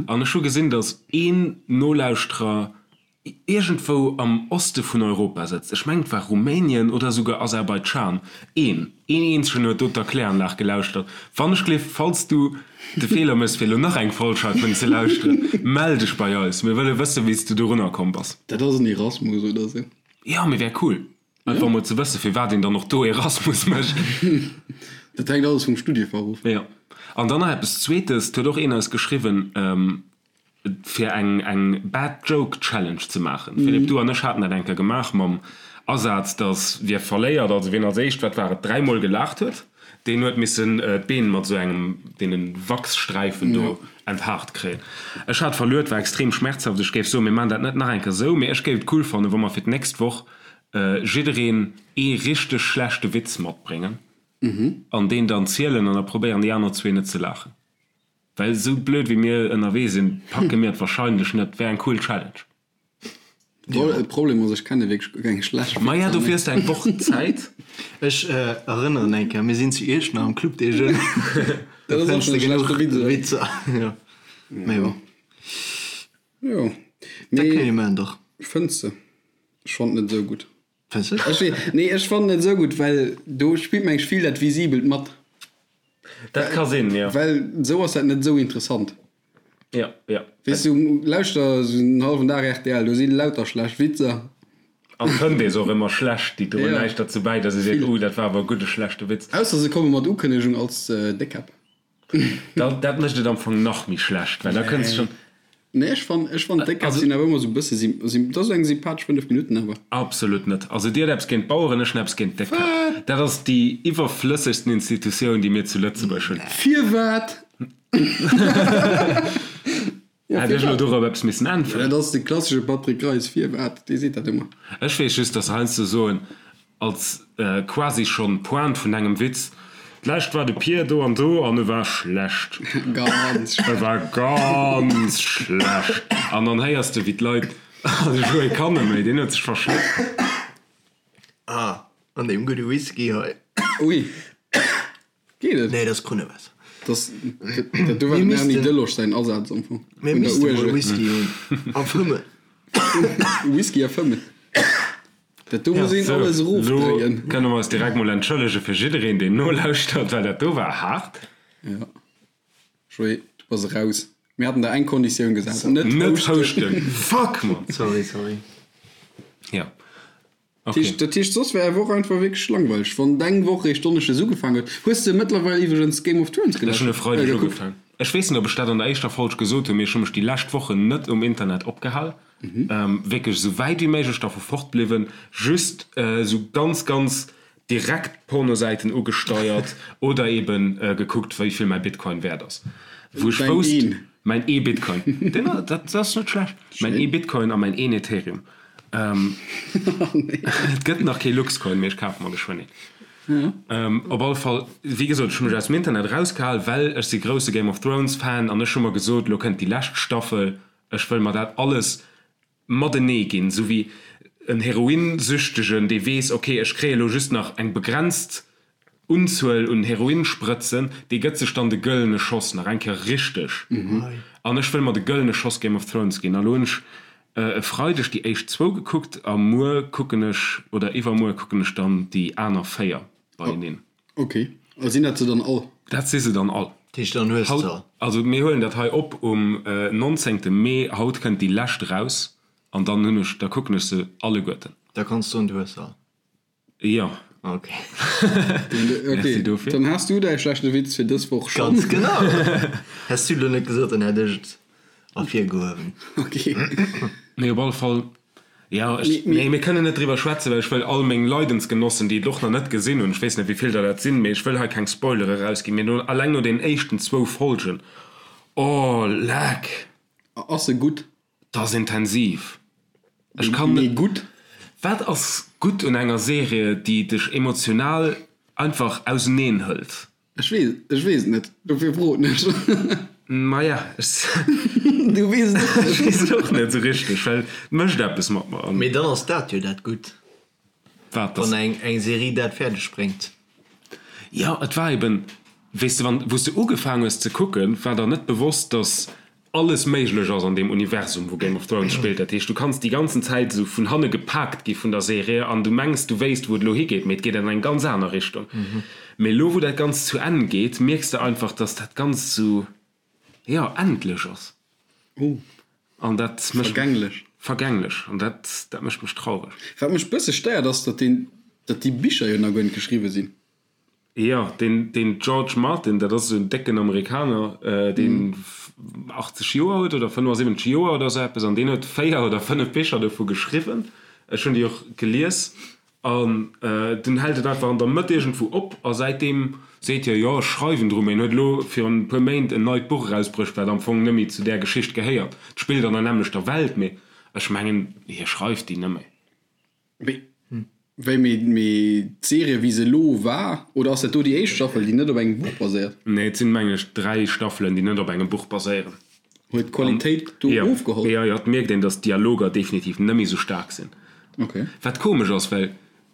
an ech hu gesinn, datt een Nolauschterer iergendwou am Oste vun Europa sëtzt, ech mengen et war Rumänien oder esouguer Aserbaidschan, een, een eenzegen huet do d'Erkläranlag gelauschtert. Wann ech gleef, falls du de Feeler méchs fir elo nach eng Folg heivun ze lauschteren, mell dech bei eis, mir wëlle wëssen, wéi s du dorunner komm bass. Dat ass en Erasmus oder sou. Jo, mee wär cool, einfach mol ze wëssen, firwat een dann och do Erasmus mécht. Dat hänkt alles vum Studiefach of. Jo. An dann nach eppes Zweetes, 't huet och een eis geschriwwen, fir eng eng Bad Joke Challenge ze maachen. Philippe, du an ech haten dat eng Kéier gemaach mam Asaz, dass wie verléiert, also wien als éischt, wat war et, dräimol gelaacht huet, deen huet missen d'Been mat esou engem deene Wachssträifen do enthaart kréien. Ech hat verluer, et war extrem schmerzhaft. Ech géif soen, mir maachen dat net nach eng Kéier esou, mee ech géif et cool fannen, wa mer fir d'nächst Woch jiddereen ee richteg schlechte Witz matbréngen an deen dann zielen an da probéieren déi aner zwee net ze laachen. Well esou blöd wéi mir ënnerwee sinn, packe mir et wahrscheinlech net. Wär eng cool Challenge. De Problem ass, ech kenne wierklech guer keng schlecht Witzer. Maja, dofir hues de eng Woch Zäit. Ech erënneren eng Kéier, mir sinn zu Iechternach am Club des Jeunes. Dat ass och schonn e schlechte Witz, oder? Witzer, jo. Mee bon. Jo. Dat kënne mir maachen, dach. Fënns de? Ech fonnt net esou gutt. Fënns de? Ech wee, nee, ech fannen net esou gutt, well do spillt mengen ech vill dat Visibelt mat. Dat ka sinn, jo. Well esou ass dat net esou interessant. Jo, jo. Weess du, lauschter esou en hallwen Dag rtl, do si lauter schlecht Witzer. An fënnt ee se och ëmmer schlecht, déi droen Ja. näischt derzou bäi, datt ee seet, oh, dat war awer e gudde schlechte Witz. Ausser se komme mat Ukënnegung als Déckkäpp. Da, dat mécht et am Fong nach méi schlecht, well da kënns schonn. Nee, ech fann, ech fann d'Déckkäpp sinn awer ëmmer esou e bësse sym, sym, dat ass eng sympathesch 5 Minutten awer. Absolut net. Also dir hutt eppes géint d'Baueren, ech hunn eppes géint d'Déckkäpp. Wat? Dat ass déi iwwerflëssegsten Institutioun, déi mir zu Lëtzebuerg hunn. Firwat? Ja, Hätt ech elo firwat? dorop eppes missen äntweren? Dat ass de klassesche Patrick Greis, Firwat? Dee seet dat ëmmer. Ech weess just, dass se heiansdo soen, als quasi schonn Pointe vun engem Witz, D'lescht war de Pier do an do an e war schlecht. Ganz E schlecht. war ganz schlecht. An dann héiers de, wéi d'Leit, Ah, de Joé kann net méi, deen huet sech verschléckt. Ah, an deem gudde Whisky hei. Ui. Geet et? Nee, dat ass Krunnewaasser. Das, dat do war dem Erny Delosch säin Asaz am Fong. Mir misste mol Whisky hunn a fëmmen. Whisky a fëmmen. Dat do muss een alles erofdréien. Lo kënne mer eis direkt mol entschëllege fir jiddereen, deen nolauschtert, well dat do war haart. Ja. Joé, du bass eraus. Mir haten der eng Konditioun gesat, net Net houschten. Fuck, Mann! Sorry, sorry. Ja. Okay. Dat heescht, soss wär är Woch einfach wierklech langweileg, wann deng Woch réischt Donneschdes ugefaangen huet. Hues de mëttlerweil iwwregens Game of Thrones Ech hunn e Freideg gekuckt? ugefaangen. Ech weess net, ob ech dat an der éischter Folg gesot hunn, mee ech hu mech déi lescht Wochen net um Internet opgehal. Wierklech esou wäit wéi méiglech dervu fort bliwwen, just esou ganz, ganz direkt Pornosäiten ugesteiert oder eben gekuckt, wéi vill mäi Bitcoin wäert ass. Wou ech Däin wousst, een. mäin ee Bitcoin, deen, dat ass net schlecht, mäin ee Bitcoin a mäin een Ethereum. Et gëtt nach kee Luxcoin, mee ech kafe mer geschwënn een. Op alle Fall, wéi gesot, ech hu mech aus dem Internet erausgehal, well ech si grousse Game of Thrones Fan an ech hu mer gesot, elo kënnt déi lescht Staffel, ech wëll mer dat alles matenee ginn, esou wéi en Heroinsüchtegen, dee weess, ok, ech kréie elo just nach eng begrenzt Unzuel un Heroinsprëtzen, dee gëtt sech dann de gëllene Schoss nach eng Kéier richteg. An ech wëll mer de gëllene Schoss Game of Thrones ginn. A lo hunn ech e Freideg déi éischt zwou gekuckt a muer kucken ech, oder iwwermuer kucken ech dann déi aner 4 beieneen. Ok, a sinn dat se dann all? Dat si se dann all. Dat heescht, dann hues de se all. Also mir huelen dat hei op um 19 Mee, haut kënnt déi lescht eraus. An dann hunn ech, da kucken ech se alleguerten. Da kanns du soen, du hues se all. Jo. Ok. Merci dofir. Dann has du däi schlechte Witz fir dës Woch schonn. Ganz genau. Häss du elo net gesot, dann hätt ech et ervirgehuewen. Ok. Mee op alle Fall, jo, ech, nee, mir kënnen net driwwer schwätzen, well ech wëll all meng Leidensgenossen, déi et och nach net gesinn hunn, ech weess net, wéi vill der dat sinn, mee ech wëll hei keng Spoilere rausginn, mee no, alleng no den éischten zwou Folgen, oh, leck! Ass se gutt? Dat ass intensiv. Ech kann Mee gutt? Wat ass gutt un enger Serie, déi dech emotional einfach auseneen hëlt? Ech weess, ech weess et net, dofir froen ech. Maja, ech. Du weess et och net. Ech weess et och net esou richteg, well et mécht eppes mat mer. Mee dann ass dat jo dat Gutt. Wat, dass. Wann eng, eng Serie dat fäerdeg bréngt. Jo, et war eben, weess de, wann, wou s de ugefaang hues ze kucken, war der net bewosst, dass alles méiglech ass an deem Universum, wou Game of Thrones spillt. Dat heescht, du kanns déi ganzen Zäit esou vun hanne gepaakt gi vun der Serie an du mengs, du wéisst, wou et elo higeet, mee et geet an eng ganz aner Richtung. Mee elo, wou dat Ganzt zu Enn geet, mierks de einfach, dass dat Ganzt esou, jo, endlech ass. An dat mécht. Vergänglech. Vergänglech. An dat, dat mécht mech traureg. Wat mech bësse stéiert, ass, datt deen, datt déi Bicher jo nach guer net geschriwwe sinn. Jo, deen, deen George Martin, dat ass esou en décken Amerikaner, deen 80 Joer huet oder 75 Joer oder esou eppes, an deen huet 4 oder 5 Bicher dovu geschriwwen. Ech hunn déi och gelies. An dunn hält et einfach an der Mëtt iergendwou op a säitdeem seet hie, jo, ech schreiwen dru. Mee en huet elo virun e puer Méint en neit Buch erausbruecht, wat am Fong net méi zu där Geschicht gehéiert. Et spillt an der nämmlechter Welt, mee ech mengen, hie schreift déi net méi. Mee wéi, mee d'Serie wéi se elo war, oder ass dat do déi éischt Staffel, déi net op engem Buch baséiert? Nee, et sinn, mengen ech, 3 Staffelen, déi net op engem Buch baséieren. Huet d'Qualitéit do ofgeholl? Jo, jo, et mierkt een, datt d'Dialoger definitiv net méi sou staark sinn. Okay. Wat komesch ass, well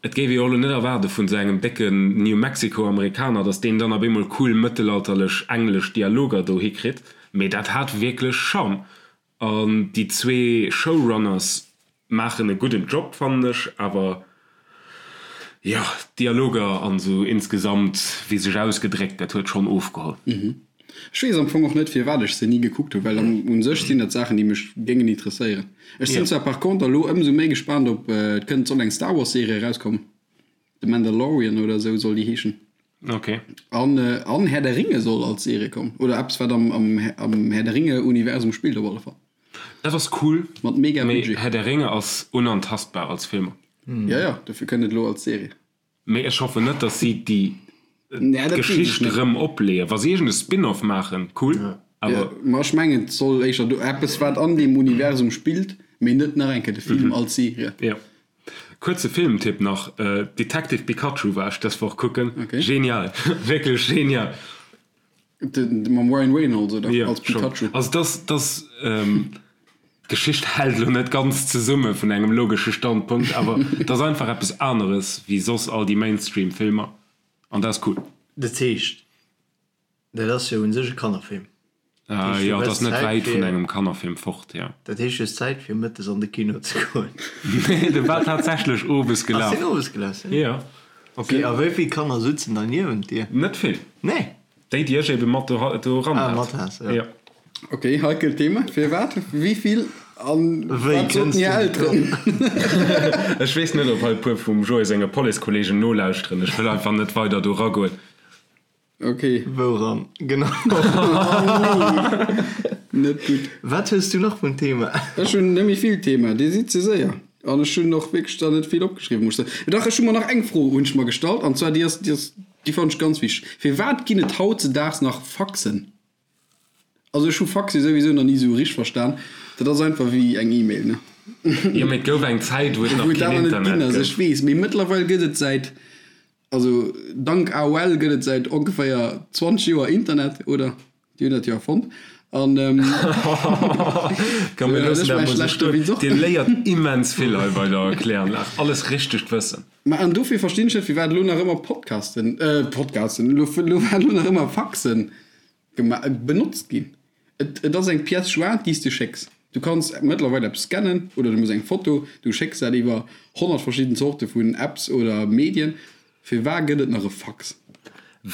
et géif ee jo och elo net erwaarde vun esou engem décken New Mexico-Amerikaner, datt deen dann op eemol cool mëttelalterlech englesch Dialoger do hikritt, mee dat hat wierklech Charme. An déi zwee Showrunners maachen e gudden Job, fannen ech, awer jo, d'Dialoger an esou insgesamt, wéi sech ausgedréckt gëtt, huet schonn ofgeholl. Ech weess am Fong och net firwat ech se ni gekuckt hunn, well un sech sinn dat Saachen déi mech géingen interesséieren. Ech sinn zwar par contre elo ëmsou méi gespaant op, et kënnt, soll eng Star Wars Serie erauskommen, The Mandalorian oder esou soll déi heeschen. Ok. An, an Herr der Ringe soll als Serie kommen, oder eppes wat am, am, am Herr der Ringe Universum spillt op alle Fall. Dat ass cool, Mat mega mee Budget. Herr der Ringe ass unantastbar als Filmer. Ja, ja, dofir kënnt et elo als Serie. Mee ech hoffen net, dass si déi Nee, dat weess ech Geschicht net. erëm opleeën. Wa si iergend e Spin-off maachen, cool, Ja, awer. ma ech mengen et soll éischter do eppes wat an deem Universum spillt, mee net nach eng Kéier de Film als Serie. Jo. Kuerze Filmtipp nach, Detective Pikachu war ech dës Woch kucken. Okay. Genial, wierklech genial. De, mam Ryan Reynolds oder? Jo, als schon. Pikachu. Also dass, dass d'Geschicht hält elo net ganz zesumme vun engem logesche Standpunkt, awer et ass einfach eppes aneres wéi soss all déi Mainstream-Filmer an dat ass cool. Dat heescht, Dat ass jo un sech e Kannerfilm. Dat heescht, du Jo, et ass net wäit vun engem Kannerfilm fort, jo. Dat heescht, du hues Zäit fir mëttes an de Kino ze goen. Nee, de war tatsächlech owes gelaf. Ass deen owes gelaf? Jo. Ok, a wéi vill Kanner sutzen da niewent dir? Net vill. Nee? Déi, déi ech ebe mat do eran hat. Ah, mat has, jo. Jo. Ok, heikelt Thema. Firwat? Wéi vill? An Wéi wat soten kënns hir du Elteren? Ech weess net, ob hei e puer vum Joé senge Policekolleegen nolauschteren. Ech wëll einfach net weider do eragoen. Ok. Wouran genau? Net gutt. Wat hues du nach vun Thema? Ech hunn net méi vill Thema, Dir sidd ze séier. An ech hunn och wierklech der net vill opgeschriwwen, muss ech soen. Dach, ech hu mer nach eng Fro hunn ech mer gestallt, an zwar déi ass, déi ass, déi fannen ech ganz wichteg. Firwat ginn et hautzedaags nach Faxen? Also ech hu Faxe souwisou nach ni esou richteg verstan. Dat ass einfach wéi eng E-Mail, ne? Jo, mee et gouf eng Zäit, wou et nach Wou et keen awer net Internet ginn ass, gouf. ech weess. Mee mëttlerweil gëtt et säit Also dank AOL gëtt et säit ongeféier 20 Joer Internet, oder? Déi hunn dat jo erfonnt. An Komm mir loossen dat mol sou stoen. Dir léiert immens vill hei bei der Kläranlag. Alles richtegt Wëssen. Mä an dofir verstinn ech net, firwat elo nach ëmmer Podcasten, Podcasten, elo firwat elo nach ëmmer Faxen Benotzt ginn. Et ass eng Pièce jointe, déi s de schécks. Du kanns mëttlerweil eppes scannen oder du muss eng Foto, du schécks dat iwwer 100 verschidden Zorte vun Apps oder Medien. Firwar gëtt et nach e Fax?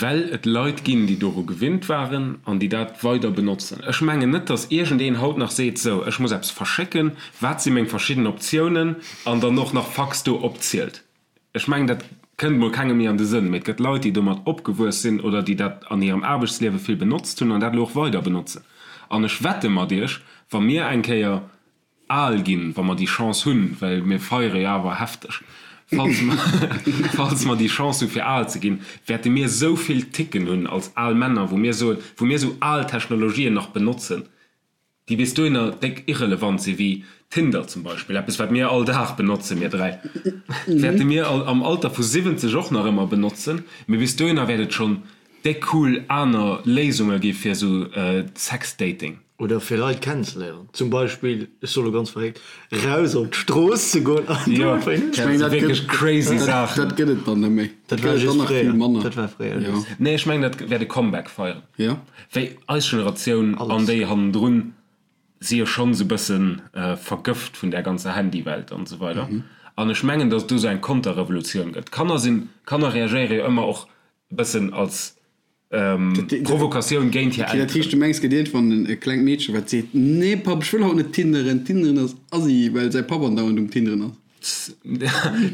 Well et Leit ginn, déi doru gewinnt waren an déi dat weider benotzen. Ech mengen net, datt iergendeen haut nach seet, sou, ech muss eppes verschécken, wat si meng verschidden Optiounen, an dann och nach Fax do opzielt. Ech mengen, dat kënnt mol kengem méi an de Sënn. Mee et gëtt Leit, déi domat opgewuess sinn oder déi dat an hirem Aarbechtsliewe vill benotzt hunn an dat elo och weider benotzen. An ech wette mat Iech, wa mir eng Kéier al ginn, wa mer déi Chance hunn, well mir feiere jo awer hefteg, falls mer, falls mer déi Chance hu fir al ze ginn, wäerte mir esou vill Ticken hunn als al Männer, wou mir soen, wou mir esou al Technologien nach benotzen, déi bis dohinner déck irrelevant sinn, wéi Tinder zum Beispill, eppes wat mir all Dag benotzen, mir 3, wäerte mir am Alter vu 70 och nach ëmmer benotzen, mee bis dohinner wäert et schonn déck cool aner Léisunge gi fir esou Sexdating. Oder fir Leit kennenzeléieren. Zum Beispill, ech soe lo ganz verréckt, raus op d'Strooss ze goen an do Jo, einfach een dat si wierklech crazy Saachen. Dat gëtt et dann net méi. Dat war just fréier. Dat war fréier just. Nee, ech mengen, dat wäert e Comeback feieren. Jo. Wéi eis Generatioun an déi hannendrun si jo schonn esou bësse vergëft vun där ganzer Handywelt an esou weider. An ech mengen, datt et do esou eng Konterrevolutioun gëtt. Kanner sinn, Kanner reagéiere jo ëmmer och e bëssen als Provokatioun géint hir Elteren. Dat heescht, du mengs, gëtt iergendwann e klengt Meedche wat seet, Nee Papp, ech wëll haut net tinderen, tinderen ass assi, well säi Papp andauernd um Tinderen ass.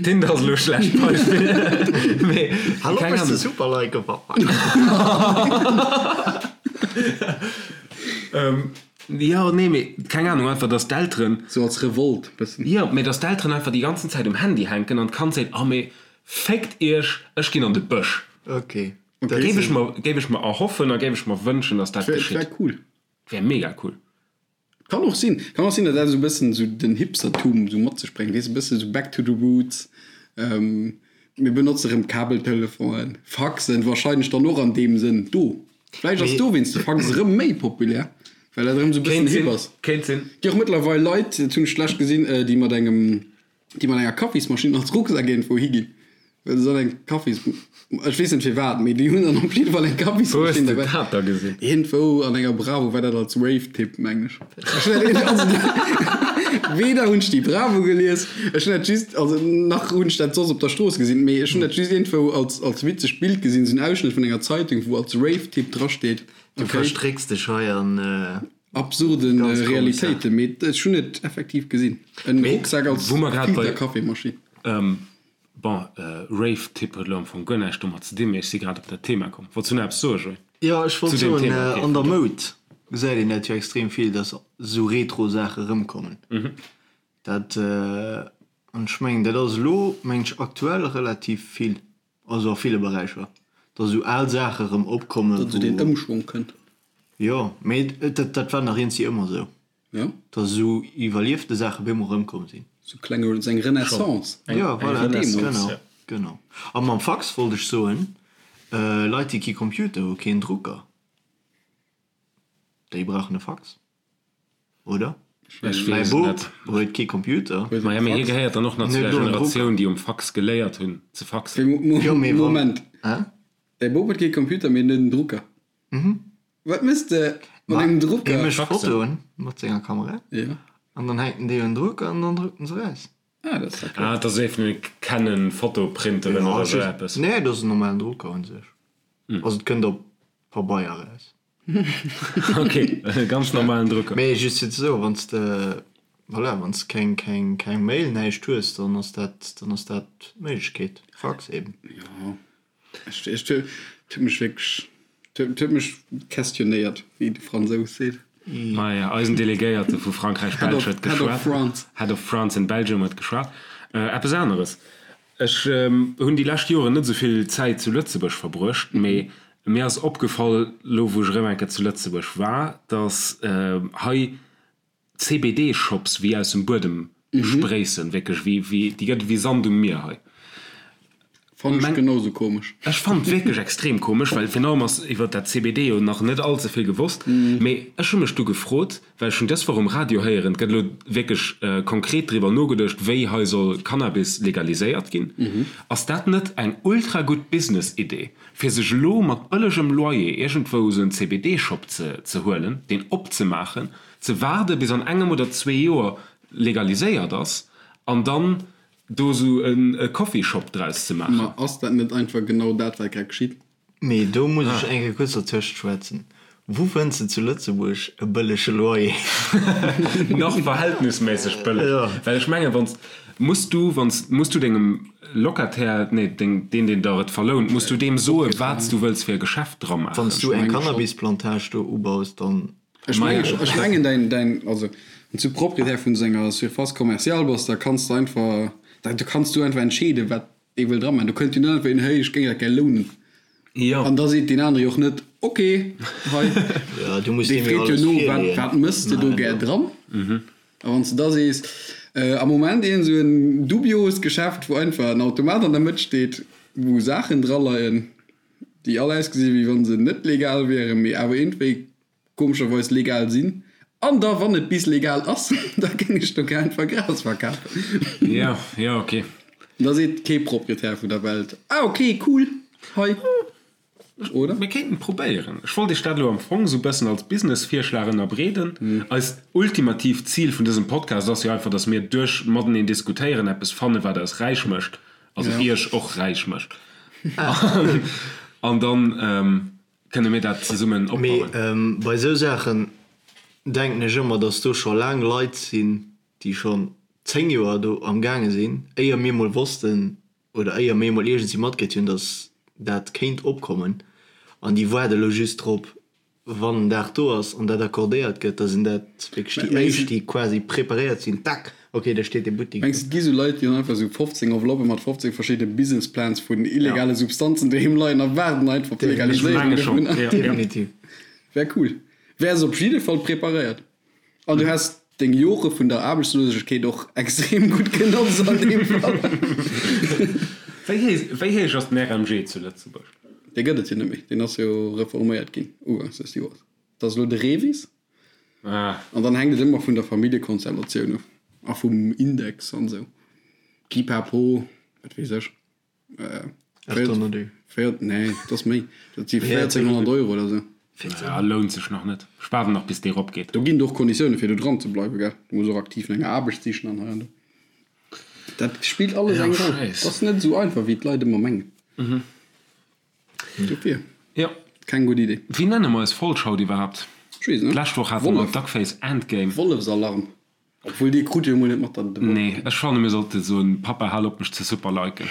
Tinder ass elo e schlecht Beispill, mee Hallo, keng Ahnung. Super like Papa. Jo, nee, mee keng Ahnung, einfach dass d'Elteren. Sou als Revolt bëssen. Jo, mee dass d'Elteren einfach déi ganzen Zäit um Handy hänken an d'Kand seet, Oh mee féckt iech, ech ginn an de Bësch. Okay. Okay. Géif ech mer, géif ech mer erhoffen a géif ech mer wënschen, dass dat geschitt. Wär cool. Wär mega cool. Kann och sinn. Kann och sinn, datt dat esou e bëssen esou den Hipstertum esou mat sech bréngt, weess, e bësse esou back to the roots. Mir benotze rëm Kabeltelefonen, Faxen wahrscheinlech dann och an deem Sënn do. Vläicht ass dowéinst de Fax erëm méi populär, well dat erëm esou e bëssen hip ass. Kéint sinn. Gi och mëttlerweil Leit, dat hunn ech d'lescht gesinn, déi mat engem déi mat enger Kaffismaschinn als Rucksak iergendwou higinn, well se dann eng Kaffis, ech weess net firwat, mee déi hunn dann op jidde Fall eng Kaffismaschinn derbäi. Wou hues de dat da gesinn? Iergendwou an enger Bravo war dat als Rave-Tipp, mengen ech. Ech hunn dat also weder hunn ech déi Bravo gelies, ech hunn dat just, also nach hunn ech dat soss op der Strooss gesinn, mee ech hunn dat just iergendwou als, als witzegt Bild gesinn, esou en Ausschnëtt vun enger Zeitung, wou als Rave-Tipp drasteet. Du verstrécks dech hei an. Absurden Realitéiten, mee ech hunn et effektiv gesinn. En Rucksak als Filterkaffeemaschinn. Bon, Rave-Tipp huet elo am Fong guer näischt domat ze dinn, mee ech si grad op dat Thema komm. Wollts du nach eppes soen, Joé? Jo, ech wollt soen, an der Moud gesäit een dat jo extrem vill, dass esou Retro-Saache erëmkommen. Dat, an ech mengen, dat ass elo, mengen ech, aktuell relativ vill. Also a ville Beräicher, datt esou al Saache erëm opkommen, wou. Datt esou deen Ëmschwong kënnt. Jo, mee dat, dat war nach iergendwéi ëmmer esou. Jo. Datt esou iwwerliefte Saache op eemol erëmkomm sinn. Esou kleng, esou eng Renaissance. Jo, voilà, genau, genau. A mam Fax wollt ech soen, Leit, déi kee Computer hu, keen Drucker, déi brauchen e Fax. Oder? Ech weess et net. Huet kee Computer. Maja, mee hie gehéiert dann och nach zu der Generatioun, déi um Fax geléiert hunn ze faxen. Moment, däi Bop huet kee Computer, mee en huet en Drucker. Wat méchs de mat engem Drucker? Hie mécht Fotoen mat senger Kamera an dann hänkt en déi un den Drucker an dann druckt en se eraus. Ah, dat ass ja cool. Ah, dat ass ee vun den Canon Fotoprinteren oder esou eppes. Nee, dat ass en normalen Drucker un sech. Also et kënnt op Pabeier eraus. Ok, e ganz normalen Drucker. Mee just fir ze soen, wann s de, voilà, wann s de keng, keng, keng Mail, näischt hues, dann ass dat, dann ass dat d'Méiglechkeet. Fax eben. Jo, ech, ech, et huet mech wierklech, et huet mech questionnéiert, wéi de Fransous seet. Maja, eisen Delegéierte vu Frankräich-Belsch huet geschwat. Head of France. Head of France in Belgium huet geschwat. Eppes aneres, Ech hunn déi lescht Joren net esou vill Zäit zu Lëtzebuerg verbruecht, mee mir ass opgefall, elo wou ech erëm eng Kéier zu Lëtzebuerg war, datt hei CBD-Shops wéi aus dem Buedem spréissen, wierklech wéi, wéi, déi gëtt et wéi Sand um Mier hei. Fannen ech genau sou komesch. Ech fannen et wierklech extrem komesch, well virun allem ass iwwert dat CBD jo nach net all ze vill gewosst. Mee ech hu mech du gefrot, well ech hunn dës Woch um Radio héieren, et gëtt elo wierklech konkret driwwer nogeduecht, wéi hei soll Cannabis legaliséiert ginn. Ass dat net eng ultra gutt Business-Idee, fir sech elo mat bëllegem Loyer iergendwou esou en CBD-Shop ze ze huelen, deen opzemaachen, ze waarde bis an engem oder zwee Joer legaliséiert ass an dann do sou e Coffee Shop draus ze maachen. Ma ass dat net einfach genau dat wat grad geschitt? Mee do muss ech eng Kéier kuerz dertëscht schwätzen. Wou fënns de zu Lëtzebuerg e bëllege Loyer? Nach verhältnisméisseg bëlleg. Well ech mengen, wann s, muss du, wann s, muss du dengem Locataire, nee, deng, deen, deen der et verlount, muss du deem soen, wat s du wëlls fir e Geschäft dra maachen. Wann s du eng Cannabisplantage do ubaus, dann. Ech mengen, ech mengen däin, däin, also wann s du Proprietär vun esou enger Surface commerciale bass, da kanns de einfach, da kanns du einfach entscheeden, wat dee wëll dra maachen. Do kënnt jo net einfach een, hey, ech géing dat gär lounen. Jo. An da seet deen anere jo och net, ok, hei. Jo, du muss Dee deem jo freet jo alles no, wat, virleeën. wat mëss de do gär dran? A wann s de da sees, am Moment iergend esou en dubioost Geschäft, wou einfach en Automat an der Mëtt steet, wou Saachen draleien, déi all ausgesi wéi wa se net legal wieren, mee awer iergendwéi komescherweis legal sinn, an da wann et bis legal ass, da géing ech do gär einfach Gras verkafen. Jo, jo, ok. Da seet kee Proprietär vun der Welt, ah ok, cool, hei, oder? Mir kéinten et probéieren. Ech wollt iech dat elo am Fong esou bëssen als Business-Virschlag ënnerbreeden. Eist ultimatiivt Zil vun dësem Podcast ass jo einfach, dass mir duerch mateneen diskutéieren eppes fannen, wat eis räich mécht, also iech och räich mécht. An dann Kënne mir dat zesummen opbauen? Mee bei esou Saachen denken ech ëmmer, dass do scho laang Leit sinn, déi schonn 10 Joer do am gaange sinn, éier mir mol wossten oder éier mir mol iergendwéi matkritt hunn, dass dat kéint opkommen. An déi waarde lo just drop, wann den Dag do ass an dat accordéiert gëtt, da sinn dat wierklech déi éischt, déi quasi preparéiert sinn, tac, Ok, da steet dee Buttik do. Mengs de et gi sou Leit déi hunn einfach sou 15 Enveloppen mat 15 verschiddene Business Plans vun illegale Substanzen doheem leien a waarden einfach op d'Legaliséierung dovun? Definitiv. Wär cool. Wäers op jidde Fall preparéiert. An du häss deng Jore vun der Aarbechtslosegkeet och extrem gutt genotzt an deem Fall. Wéi héich ass den RMG zu Lëtzebuerg? Dee gëtt et jo net méi. Deen ass jo reforméiert ginn ugangs des Joers. Dat ass elo de REVIS. An dann hänkt et ëmmer vun der Familljekonstellatioun of a vum Index an esou. Pipapo, wat weess ech. 800 Euro. Véier, nee, dat ass méi. Dat si 1400 Euro oder esou. Ja, lount sech nach net. Ech waarden nach bis dee rop geet. Do ginn et och Konditioune fir do dran ze bleiwen, gell. Du muss och aktiv no enger Aarbecht sichen an hei an do. Dat spillt alles eng Roll. Dat ass net esou einfach wéi d'Leit ëmmer mengen. Dofir. Jo. Keng gutt Idee. Wéi nenne mer eis Folg haut iwwerhaapt? Ech weess net. D'lescht Woch hate mer Duckface Endgame. Wollefsalarm. Obwuel dee krut jo emol net mat der de Wollef. Nee, ech fanne mir sollte soen, Papa hal op mech ze superliken.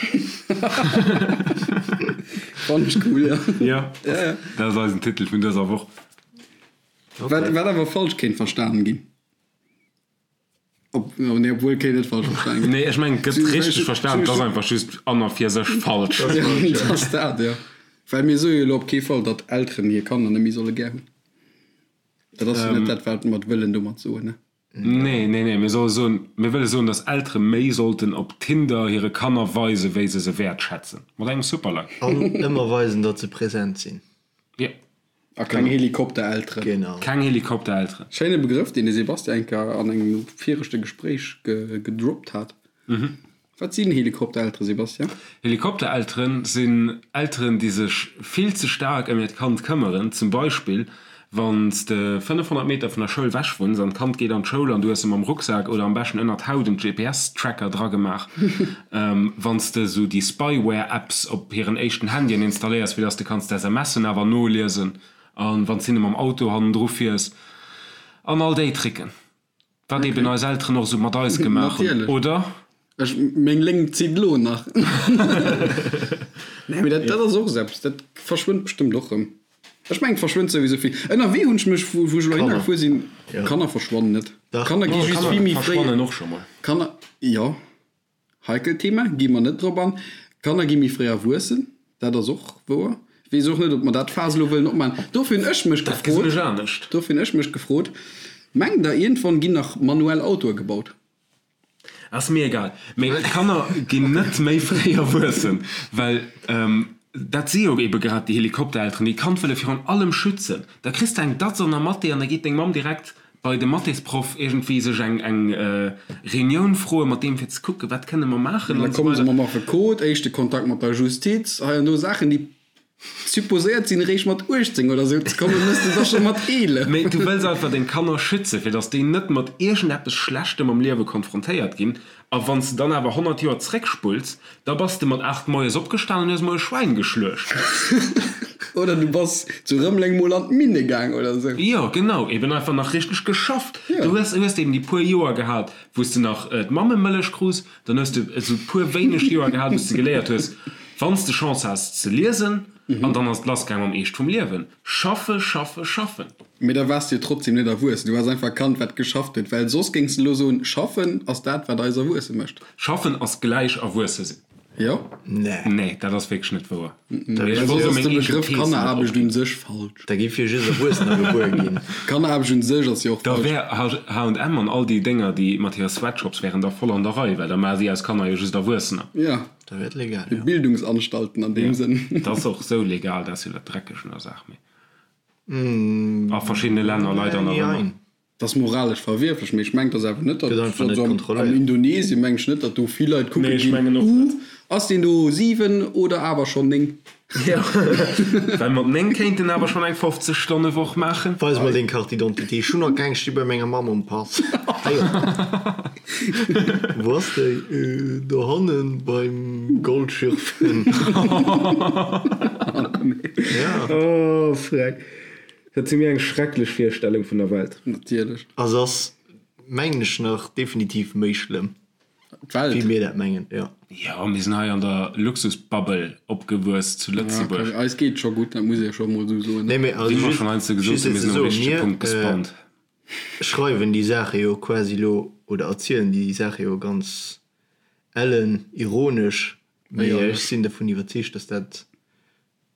Fannen ech cool, jo. Jo, dat ass eisen Titel vun dëser Woch. Wat awer falsch kéint verstanen ginn. Ob, oh nee, obwuel kéint net falsch verstanen ginn. Nee, ech mengen, et gëtt richteg verstan, et ass einfach just an a fir sech falsch. Dat ass dat, jo. Well mir soe jo elo op kee Fall, datt Elteren hir Kanner net méi solle gär hunn. Dat ass jo net dat, wat mer wëllen domat soen, ne? Nee, nee, nee, mir solle soen, mir wëlle soen, datt Eltere méi sollten op Tinder hire Kanner weisen, wéi se se wäertschätzen. Mat engem Superlike. An ëmmer weisen, datt se present sinn. Jo. A keng Helikopterelteren. Genau. Keng Helikopterelteren. Schéine Begrëff, deen de Sebastian eng Kéier an engem viregte Gespréich gedroppt hat. Wat sinn Helikopterelteren, Sebastian? Helikopterelteren sinn Elteren, déi sech vill ze staark ëm hiert Kand këmmeren. Zum Beispill, wann s de 500 Meter vun der Schoul wech wunns an d'Kand geet an d'Schoul an du hues em am Rucksak oder am beschten ënnert d'Haut en GPS-Tracker dragemaach. Wann s de esou déi Spyware-Apps op hiren éischten Handyen installéiers, fir dass de kanns d'SMSen awer noliesen a wann s hinne mam Auto hannendru fiers an all déi Tricken. Wat eben eis Elteren och esou mat eis gemaach hunn, oder? Ech, meng Léngt zitt elo nach. Nee, mee dat, dat ass och esou eppes, dat verschwënnt bestëmmt och rëm. Ech mengen, et verschwënnt souwisou vill. Ënnerwee hunn ech mech, wou ech elo hinner gefuer sinn, Kanner verschwannen net. Kanner gi just vill méi fréi. Verschwannen och scho mol. Kanner, jo. Heikelt Thema, gi mer net drop an. Kanner gi méi fréi erwuessen, dat ass och wouer. Weess och net, ob mer dat Faass elo wëllen opmaachen. Dofir hunn ech mech Dat gesinn ech anescht. Dofir hunn ech mech gefrot, Mengt der, iergendwann ginn nach manuell Autoe gebaut? Ass mir egal. Mee d'Kanner ginn net méi fréi erwuessen, well dat si jo ebe grad déi Helikopterelteren, déi d'Kand wëlle virun allem schützen. Da kriss de eng Datz an der Mathé an da geet deng Mamm direkt bei de Mathésproff iergendwéi sech eng eng Reunioun froe mat deem fir ze kucken, wat kënne mer maachen an esou weider. Da komme se mam Affekot, éischte Kontakt mat der Justiz, hei an do Saachen, déi. Supposéiert sinn eréischt mat 18 oder sou ze kommen, mëss de da scho mat 11. Mee du wëlls einfach deng Kanner schützen, fir dass déi net mat iergendeppes Schlechtem am Liewe konfrontéiert ginn. A wann s de dann awer 100 Joer zréckspulls, da bass de mat 8 moies opgestan an hues mol e Schwäin geschluecht. Oder du bass zu Rëmeleng mol an d'Minne gaang oder sou. Jo, genau, eben einfach nach richteg geschafft. Du hues hues eben déi puer Joer gehat, wou s de nach d'Mammemëllech krus. Dann hues de esou puer wéineg Joer gehat, wou s de geléiert hues, wann s de Chance has, ze liesen. An dann ass et lassgaang mam Eescht vum Liewen. Schaffe, schaffe, schaffen. Mee da waars de jo trotzdem net erwuessen. Du waars einfach e Kand, wat geschafft huet. Well soss géings de elo soen, schaffen ass dat, wat eis erwuesse mécht. Schaffen ass gläich erwuesse sinn. Jo? Nee. Nee, dat ass wierklech net wouer. Well soss ass de Begrëff Kanneraarbecht un sech falsch. Da géif jo just Erwuessener gebuer ginn. Kanneraarbecht un sech ass jo och Da falsch. wär H&M an all déi Dénger, déi mat hire Sweatshops wären da voll an der Rei, well da maache si aus Kanner jo just Erwuessener. Jo. Da wär et legal, jo. Bildungsanstalten an deem Sënn. Dat ass och sou legal, dat ass jo dat Dreckegt un der Saach, mee a verschiddene Länner leider nach ëmmer. Dat ass moralesch verwierflech, mee ech mengen, et ass awer net, datt Gëtt einfach net also am kontrolléiert. Indonesien mengen ech net, datt do vill Leit kucke Nee, ech ginn, mengen och uh, net. ass deen do 7 oder awer schonn 9? Jo, well mat 9 kéint en awer schonn eng 50 Stonne Woch maachen. Weis mol deng Carte d'identité, ech hunn nach keng, sti bei menger Mamm um Pass. Hei op. Wou ass déi? Dohannen beim Goldschürfen. Ja. Oh, freck. Dat si mir eng schrecklech Virstellung vun der Welt. Natierlech. A se ass, mengen ech, nach definitiv méi schlëmm, D'Welt. wéi mir dat mengen, jo. Jo, mir sinn hei an der Luxusbubble opgewuess zu Lëtzebuerg. Ja, eis geet et scho gutt, dat muss ee scho mol esou soen. Nee, mee also Wéi mer just, schonn heiansdo gesot just hunn, fir mir ze sinn um soen, richtege mir Punkt gespawnt. schreiwen déi Saache jo quasi elo, oder erzielen déi Saache jo ganz ellen ironesch, mee ech sinn dervun iwwerzeegt, dass dat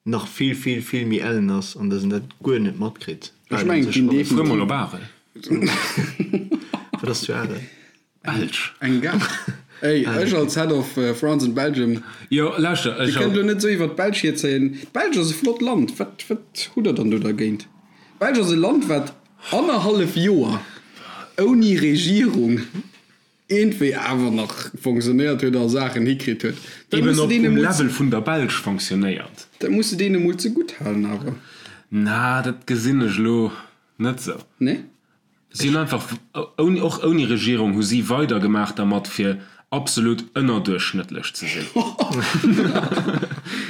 nach vill vill vill méi ellen ass an dass en dat guer net matkritt. Ech mengen et ginn Fuer mol definitiv op Arel. Wat ass zu Arel? Belsch. Eng Gare. Ey, ech als Head of France and Belgium, Jo, lauschter, Dir ech kënnt elo net esou iwwer d'Belsch hierzéien. D'Belsch ass e flott Land. Wat, wat hutt der dann do dergéint? D'Belsch ass e Land, wat annerhallef Joer ouni Regierung iergendwéi awer nach fonctionnéiert huet a Saachen hikritt huet. Dat Eben muss de op deene um mol Level vun der Belsch fonctionnéiert. Dat muss de deene mol zegutt halen awer. Na, dat gesinn ech elo net esou. Nee? Si hunn einfach, ouni, och ouni Regierung hu si weidergemaach dermat fir absolut ënnerduerchschnëttlech ze sinn.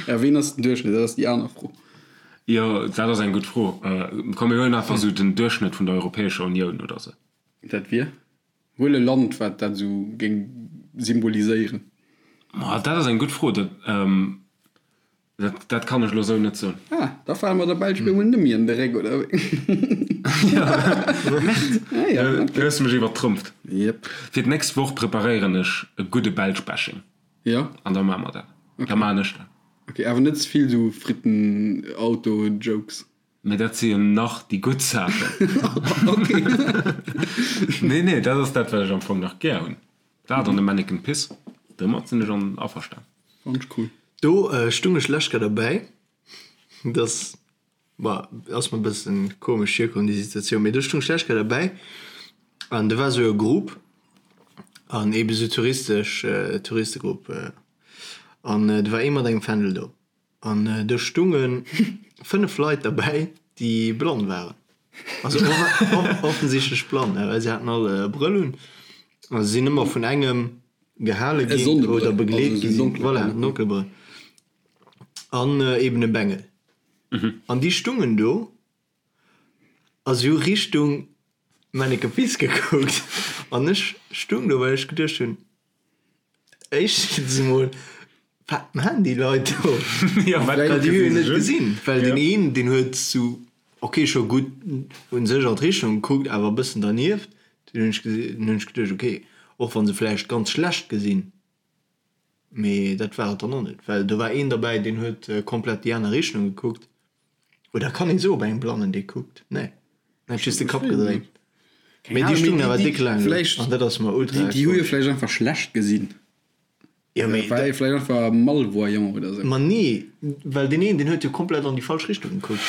Ja, ween ass den Duerchschnëtt? Dat ass déi aner Fro. Jo, dat ass eng gutt Fro. Komm mir huelen einfach esou den Duerchschnëtt vun der Europäescher Unioun oder esou. Dat wier? Huel e Land, wat dat esou géing symboliséieren. Ma dat ass eng gutt Fro. Dat, dat, dat kann ech elo esou net soen. Ah, da fale mer der Belsch bemol net méi an de Réck, oder wéi? Merde! Ah ja, Du hues mech iwwertrompt. Jep. Fir d'nächst Woch preparéieren ech e gudde Belsch-Bashing. Ja? An da maache mer dat. Da maachen ech dat. Ok, awer net ze vill esou Fritten-Auto-Jokes. Mee dat si jo nach déi gutt Saachen. Ok. Nee, nee, dat ass dat, wat ech am Fong nach gär hunn. Dat an de Manneken Piss, domat sinn ech an averstan. Fand ech cool. Do stung ech lech grad derbäi, dass, ma ass mer e bëssen komesch virkomm déi Situatioun, mee do stung ech lech grad derbäi an do war esou e Grupp an eebe sou touristesch, Touristegrupp an do war ee mat engem Fändel do. An do stunge 5 Leit derbäi, déi blann waren. Also offensichtlech blann, well se haten all e Brëll un a se sinn ëmmer vun engem gehale ginn oder begleet gi sinn. Voilà, en Donkelbrëll. An eben e Bengel. An déi stungen do a si hu Richtung Manneken Piss gekuckt. An ech stung do, well ech geduecht hunn, Éischtens emol, wat maan déi Leit do? Ja, wat Well déi hu jo net gesinn? gesinn, well deen een, deen huet sou, ok, scho gutt un sech an d'Richtung gekuckt, awer e bëssen dernieft. Dunn hunn ech gesi, dunn hunn ech geduecht, ok, och wa se vläicht ganz schlecht gesinn, mee dat war et dann och net, well do war een derbäi, deen huet komplett déi aner Richtung gekuckt. Oder kann een sou op engem Blannen dee kuckt? Nee, en hat just de Kapp gedréint. Mee déi stungen awer déck laang do an dat ass mer ultra Déi hu jo komesch. vläicht einfach schlecht gesinn. Jo, mee War ee vläicht einfach malvoyant oder sou. Ma nee, well deen een, deen huet jo komplett an déi falsch Richtung gekuckt.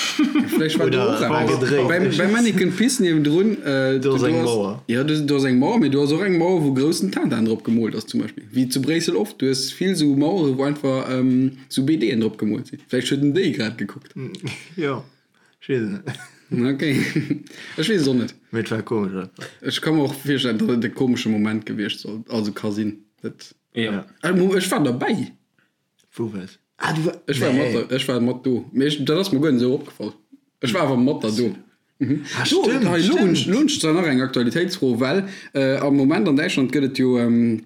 Vläicht war do Oder och war eppes. gedréit. Beim, beim Manneken Pis niewendrun, äh, Do ass eng ass, Mauer. jo, do, do ass eng Mauer, mee do ass och eng Mauer, wou groussen Tintin drop gemoolt ass zum Beispill. Wéi zu Bréissel oft. Du hues vill sou Mauere, wou einfach ähm, sou BDen drop gemoolt sinn. Vläicht huet en déi grad gekuckt. Jo, ech weess et net. Ok, ech weess et och net. Mee et war komesch einfach. Ech ka mer och virstellen, datt et e komesche Moment gewiescht soll, also ka sinn. Dat. Ja. Ech war derbäi. Wou waars? Ah, du war. Ech war mat, ech war mat do. Mee ech, dat ass mer guer net esou opgefall. Ech war awer mat der do. Mhm. Ah, Do, stimmt, hei, lo hunn ech, stimmt. lo hunn ech zwar nach eng Aktualitéitsfro, well äh, am Moment an Däitschland gëtt et jo ähm,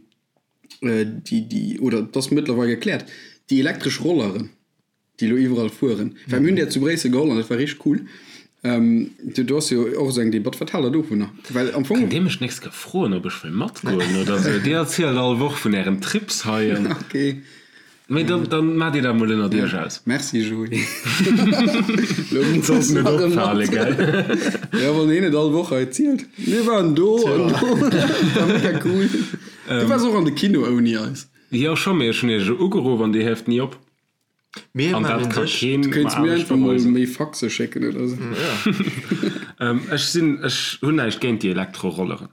äh, déi, déi, oder et ass mëttlerweil gekläert, déi elektresch Rolleren. Déi elo iwwerall fueren. Well mir hunn där zu Bréissel geholl an dat war richteg cool. Do do ass jo och esou eng Debatt. Wat haalt der dovunner? Well am Fong. Kënnt Dir mech d'nächst Kéier froen, ob ech wëll matgoen oder esou? Dir erzielt all Woch vun Ären Trips hei an. Ok. Mee dann, dann maacht Dir dat mol ënnert Iech aus. Merci Joé. Lo muss Sollt net nach e opfale, mat. gell? Jo, wann een et all Woch hei zielt. Mir waren do an do. War mega cool. Du waars och an de Kino ouni eis. Jo, scho, mee ech hunn Iech ugeruff an Dir hieft ni op. Mir An dat maachen ka sech. keen Du kéints mer mir anescht einfach mol beweisen. méi Faxe schécken oder sou. Ech sinn, ech hunn näischt géint déi Elektrorolleren.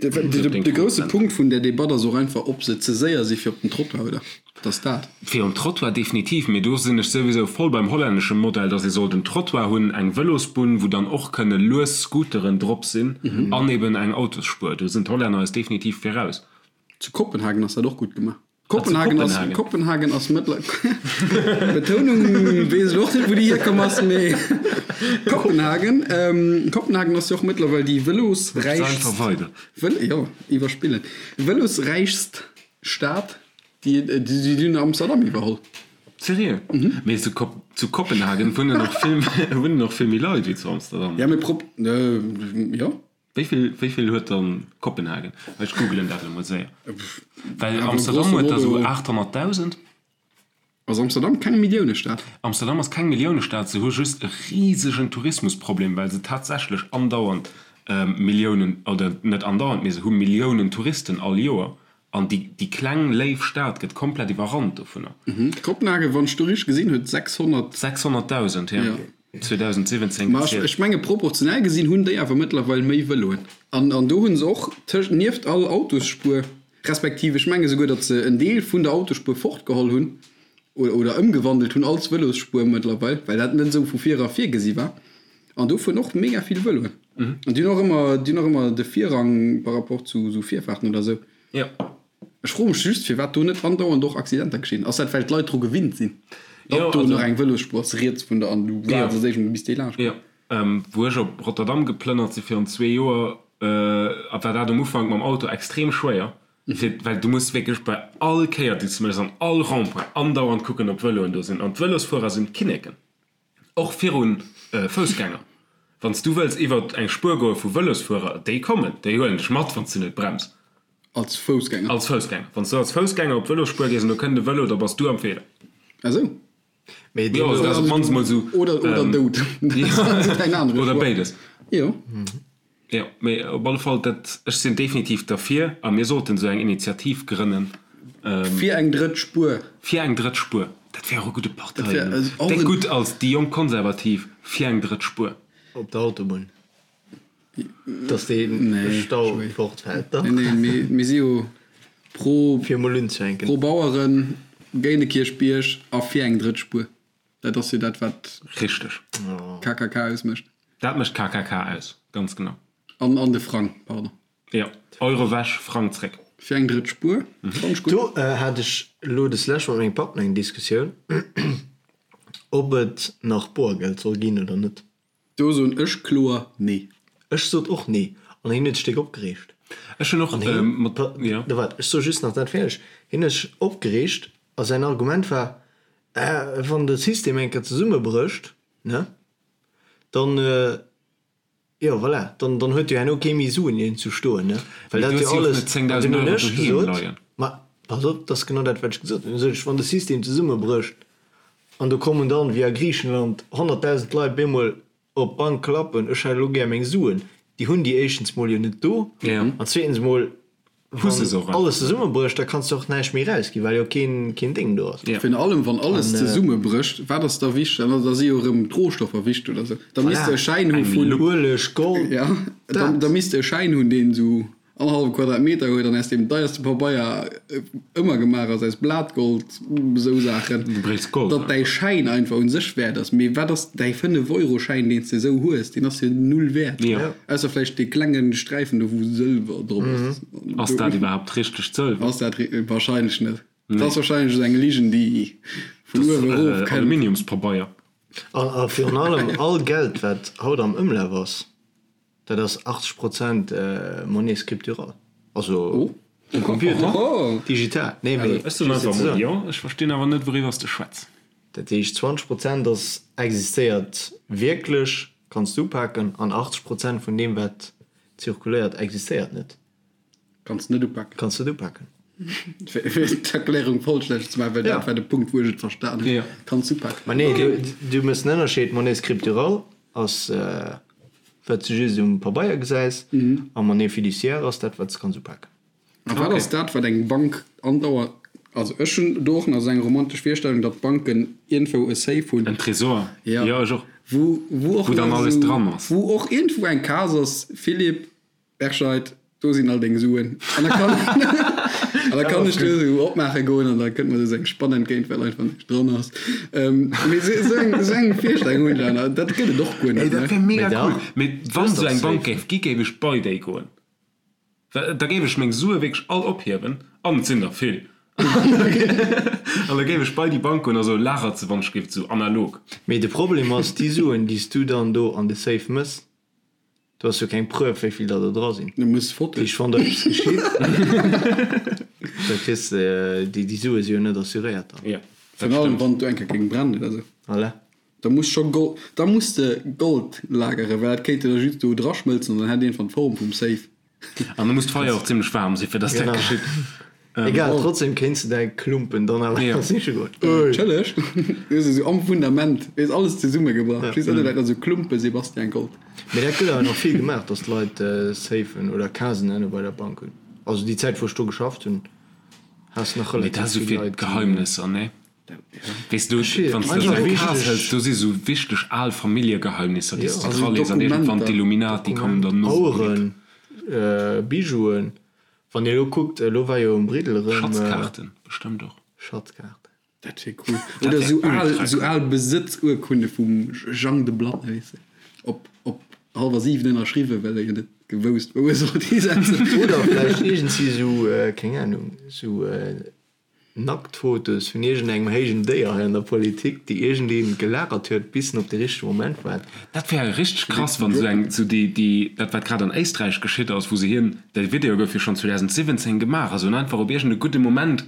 De, de, de grousse Punkt vun där Debatt ass och einfach, ob se ze séier si fir op den Trottoir, oder? Dat ass dat. Fir um Trottoir definitiv, mee do sinn ech souwisou voll beim hollännesche Modell, dass ee sollt en Trottoir hunn, eng Vëlosbunn, wou dann och kënne lues Scooteren drop sinn an eben eng Autosspuer. Do sinn d'Hollänner eis definitiv viraus. Zu Kopenhagen ass dat och gutt gemaach. Kopenhagen ass, Kopenhagen ass mëttler Betounung weess ech och net wou déi hierkomm ass, mee Kopenhagen, Kopenhagen ass jo och mëttlerweil déi vëlosräichst, Vël, jo, iwwerspillen, vëlosräichst Stad, déi, déi hunn Amsterdam iwwerholl. Seriö? Mee zu Kop, zu Kopenhagen wunnen och vill, wunnen och vill méi Leit wéi zu Amsterdam. Ja, mee prop, jo. Wéi vill, wéi vill huet dann Kopenhagen? Ech googelen dat elo mol séier. Well Amsterdam huet der esou 800.000. Ass Amsterdam keng Milliounestad? Amsterdam ass keng Milliounestad, se hu just e risegen Tourismusproblem, well se tatsächlech andauernd Milliounen, oder net andauernd, mee se hu Milliounen Touristen all Joer an déi, déi kleng léif Stad gëtt komplett iwwerrannt dovunner. Kopenhagen, wann ech do richteg gesinn, huet 600. 600.000, jo. 2017 Ma ech menge proportionell gesinn hunn déi awer mëttlerweil méi Vëloen. An an do hu se och tëscht, nieft all Autosspuer, respektiv ech menge souguer, datt se en Deel vun der Autosspuer fortgeholl hunn oder oder ëmgewandelt hunn als Vëlosspuer mëttlerweil, well dat net esou vu vir era virgesi war. An do fueren och mega vill Vëloen. An déi hunn och ëmmer, déi hunn och ëmmer de Virrang par rapport zu esou Virfaarten oder esou. Jo. Ech froe mech just, firwat do net andauernd och Accidenter geschinn. Ass dat, well d'Leit dru gewinnt sinn, datt Jo, do also nach eng Vëlosspuer ass riets vun der an du waarts als éischt mol bis déi laanscht Jo, kënnt? wou ech op Rotterdam geplënnert si virun zwee Joer, war dat um Ufank mam Auto extrem schwéier, fir, well du muss wierklech bei all Kéier, déi s du méchs, an all Rond-point andauernd kucken, ob Vëloen do sinn. An d'Vëlosfuerer sinn d'Kinneken. Och virun Foussgänger. Wann s du wëlls iwwert eng Spuer goe vu Vëlosfuerer, déi kommen, déi huelen dech mat, wann s du net brems. Als Foussgänger? Als Foussgänger. Wann s du als Foussgänger op d'Vëlosspuer gees an do kënnt e Vëlo, da bass du am Feeler. Ah sou. Mee Jo, also dat ass op d'mannst mol sou. Oder, oder dout. Oder béides. Jo. Jo, mee op alle Fall, dat, ech sinn definitiv derfir a mir sollten esou eng Initiativ grënnen. Fir eng drëtt Spuer. Fir eng drëtt Spuer. Dat wär och e gudde Parteien. Déck gutt als déi jonk Konservativ fir eng drëtt Spuer. Op der Autobunn, dass dee Stau fortfält. Nee, nee, mee mir si jo pro. Fir emol unzefänken. Pro Baueren, géint de Kierchbierg a fir eng drëtt Spuer. Dat ass jo dat, wat. Richteg. KKK ausmécht. Dat mécht KKK aus, ganz genau. An, an de Frang, pardon. Jo, Euro wech, Frang zréck. Fir eng drëtt Spuer, fannt ech gutt. Do hat ech elo des Lescht mat mengem Papp eng Diskussioun, ob et nach Boergeld soll ginn oder net. Do soen ech kloer nee. Ech sot och nee an hien huet sech déck opgereegt. Ech hunn och An hien, mat, jo. Da waart, ech soe just nach dat fäerdeg. Hien huet sech opgereegt a säin Argument war, Äh, wann de System eng Kéier zesummebrécht, ne, dann, jo voilà, dann, dann huet jo herno kee méi Suen iergend zu stoen, ne, well Mee dat du jo hues jo och alles. net An 10.000 dunn hunn Euro ech doheem gesot, leien. Ma pass op, dat ass genau dat, wat ech gesot hunn. Dunn sot ech, Wann de System zesummebrécht an do kommen dann, wéi a Griichenland, 100.000 Leit bemol op d'Bank klappen, ech hätt elo gär meng Suen, déi hunn déi éischtens mol jo net do an zweetens mol. Wann alles zesummebrécht, da kanns de och näischt méi erausginn, well jo keen, keen Déng do ass. Virun allem wann alles zesummebrécht, wat ass da wichteg? Dann da si jo erëm d'Rohstoffer wichteg oder sou. Da misst de e Schäin hu vun. Ueleg, Gold, Ja, da misst de e Schäin hunn, deen esou annerhallwe Quadratmeter huet an aus deem deierste Pabeier ëmmer gemaach ass, aus Blatgold, esou Saachen, Du bréichs Gold datt däi Schäin einfach un sech wäert ass. Mee wat ass däi Fënnef-Euro-Schäin, deen s de esou hues, deen ass jo null wäert. Jo. Ausser vläicht dee klenge Sträifen do, wou Sëlwer drop ass. Ass dat iwwerhaapt richtegt Sëlwer? Ass dat wahrscheinlech net. Dat ass wahrscheinlech esou eng Ligen, déi vun uewe erof kënnt. Aluminiumspabeier. A virun allem all Geld, wat haut am Ëmlaf ass, dat ass 80 Prozent Monnaie scripturale, also um Computer, digital. Nee, mee Ech soen einfach mol jo. Ech verstinn awer net, wouriwwer s de schwätz. Dat heescht, 20 Prozent ass existéiert wierklech, kanns de upaken, an 80 Prozent vun deem, wat zirkuléiert, existéiert net. Kanns net upaken. Kanns net upaken. Fir d'Erklärung vollstänneg ze maachen, well dat war de Punkt, wou ech et verstan hunn. Kanns upaken. Ma nee, du méchs en Ënnerscheed, Monnaie scripturale ass, wat s de just um Pabeier gesäis, a Monnaie fiduciaire ass dat, wat s de kanns upaken. A wat ass dat, wat eng Bank andauernd, also ech hunn do och nach esou eng romantesch Virstellung, datt d'Banken iergendwou e Safe hunn. En Tresor, jo, ech och. Wou, wou och Wou dann alles dran ass. Wou och iergendwou eng Case ass, Philippe Berscheid, do sinn all deng Suen. An da kann, an da kann ech do esou opmaache goen an da kënnt mer esou eng Spann entgéint, well einfach näischt dran ass. Mee esou eng, esou eng Virstellung hunn ech awer. Dat gëtt et och guer net, ne? Ey, dat wär mega cool. Mee wann esou eng Bank géif gi, géif ech bei déi goen. Da géif ech meng Sue wierklech all ophiewen, an et sinn der vill, an da géif ech bei déi Bank goen a soen, lagert se wann ech géif, esou analog. Mee de Problem ass, déi Suen, déi s du dann do an de Safe mëss, do ass jo keng Preuve, wéi vill der do dra sinn. Du muss Fotoen. Dat heescht, wann der eppes geschitt, da kriss de déi, déi Sue si jo net assuréiert dann. Jo, dat Virun allem, stëmmt. wann et do eng Kéier géing brennen oder esou. Voilà. Da muss scho Gold, da muss de Gold lageren, well dat kéint de da just do draschmëlzen an dann hätt iergendwann d'Form vum Safe. An da muss d'Feier och zimlech waarm sinn, fir dass dat geschitt. Egal, trotzdem kéints de däi Klumpen dann awer siche goen. Natierlech, du hues esou am Fundament, hues alles zesummegebracht, just ënne läit nach esou Klumpe Sebastian Gold. Mee dat gëtt awer nach vill gemaach, dass d'Leit Safen oder Casen ënne bei der Bank hunn. Also déi Zäit wou ech do geschafft hunn, has de nach Mee dat relativ ass esou vill fir Leit déi. Geheimnisser, nee? Weess du, wann s de esou eng Kas hëls, do si sou wichteg al Familljegeheimnisser, déi s de dralees an iergendwann d'Illuminati kommen dann no. Aueren, Bijouen, wann Dir elo kuckt, elo war jo um Briddel erëm. Schatzkaarten bestëmmt och. Schatzkaarten. Dat wier cool. Oder esou al, esou al Besëtzurkunde vum Jang de Blanne, weess de, op, op hallwer 7 ënnerschriwwen, well e jo net gewousst, wou e sollt hisetzen. Oder vläicht iergendwéi esou, keng Ahnung, esou Nacktfotos vun iergendengem héijen Déier hei an der Politik, déi iergendeen gelagert huet, bis en op de richtege Moment waart. Dat wär richteg krass, wann esou eng, esou déi, déi, dat wat grad an Éisträich geschitt ass, wou se hien, de Video gouf jo schonn 2017 gemaach, a se hunn einfach op iergend e gudde Moment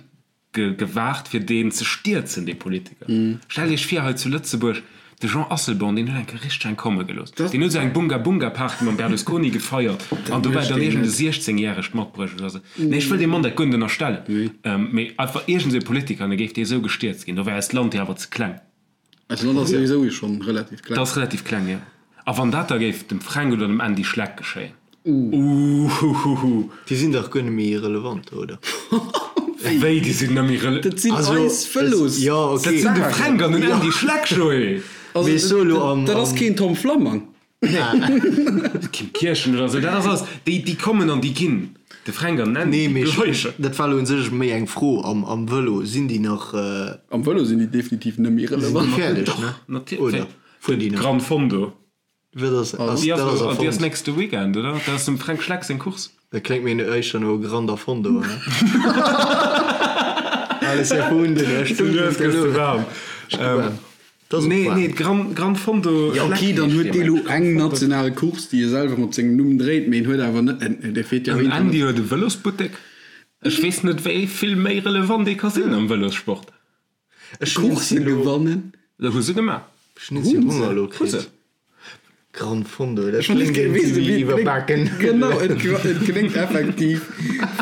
ge, gewaart, fir deen ze stierzen, dee Politiker. Stellt Iech vir, hei zu Lëtzebuerg, De Jean Asselborn, deen huet eng Kéier richteg eng komme gelooss. Deen huet esou eng Bunga-Bunga-Party mam Berlusconi gefeiert an dobäi dann iergend e 16 järegt matbruecht oder esou. Nee, ech wëll deem Mann dat guer net ënnerstellen, mee einfach iergend esou e Politiker an da géif dee esou gestierzt ginn. Do wär eist Land jo awer ze kleng. Eist Land ass souwisou schonn relativ kleng. Dat ass relativ kleng, jo. A wann dat da géif dem Fränk oder dem Andy Schleck geschéien? Uuhuhuhu. Déi sinn dach guer net méi relevant, oder? Wéi, déi sinn net méi rele. Dat sinn eis Vëlos. Jo, ok. Dat sinn de Fränk an den Andy Schleck, Joé. Mee ech soe lo am. Dat ass keen Tom Flammang. Kim Kirchen oder esou, dat ass alles, déi, déi kommen an déi ginn. De Fränk an den Andy, Nee, déi mee bleiwen. dat war lo un sech méi eng Fro. Am, am Vëlo, sinn déi nach. Am Vëlo sinn déi definitiv net méi Sinn déi relevant. fäerdeg, ne? Natierlech. Oder fueren déi nach? Gran Fondo. Wat ass, ass, Déi dat ass ass, déi ass erfonnt. nächste Weekend, oder? Dat ass dem Fränk Schleck seng Course. Dat kléngt mir éischter no Granda Fondo, ne? Alles erfunden, Du gëss de waarm. Nee, nee, d'Gran, Gran Fondo Ja, okay, dann huet dee lo eng national Course, déi e selwer mat sengem Numm dréit, mee en huet awer net, en, dee feet jo Den Andy huet e Vëlosbuttek. Ech weess net, wéi vill méi relevant ee ka sinn am Vëlossport. Ech hunn Course gewannen. Dat hu se gemaach. Ech hunn si Honger elo Hu se. kritt. Gran Fondo, dat Ech kléngt kléngt wéi iwwerbaken. Genau, et kléngt effektiv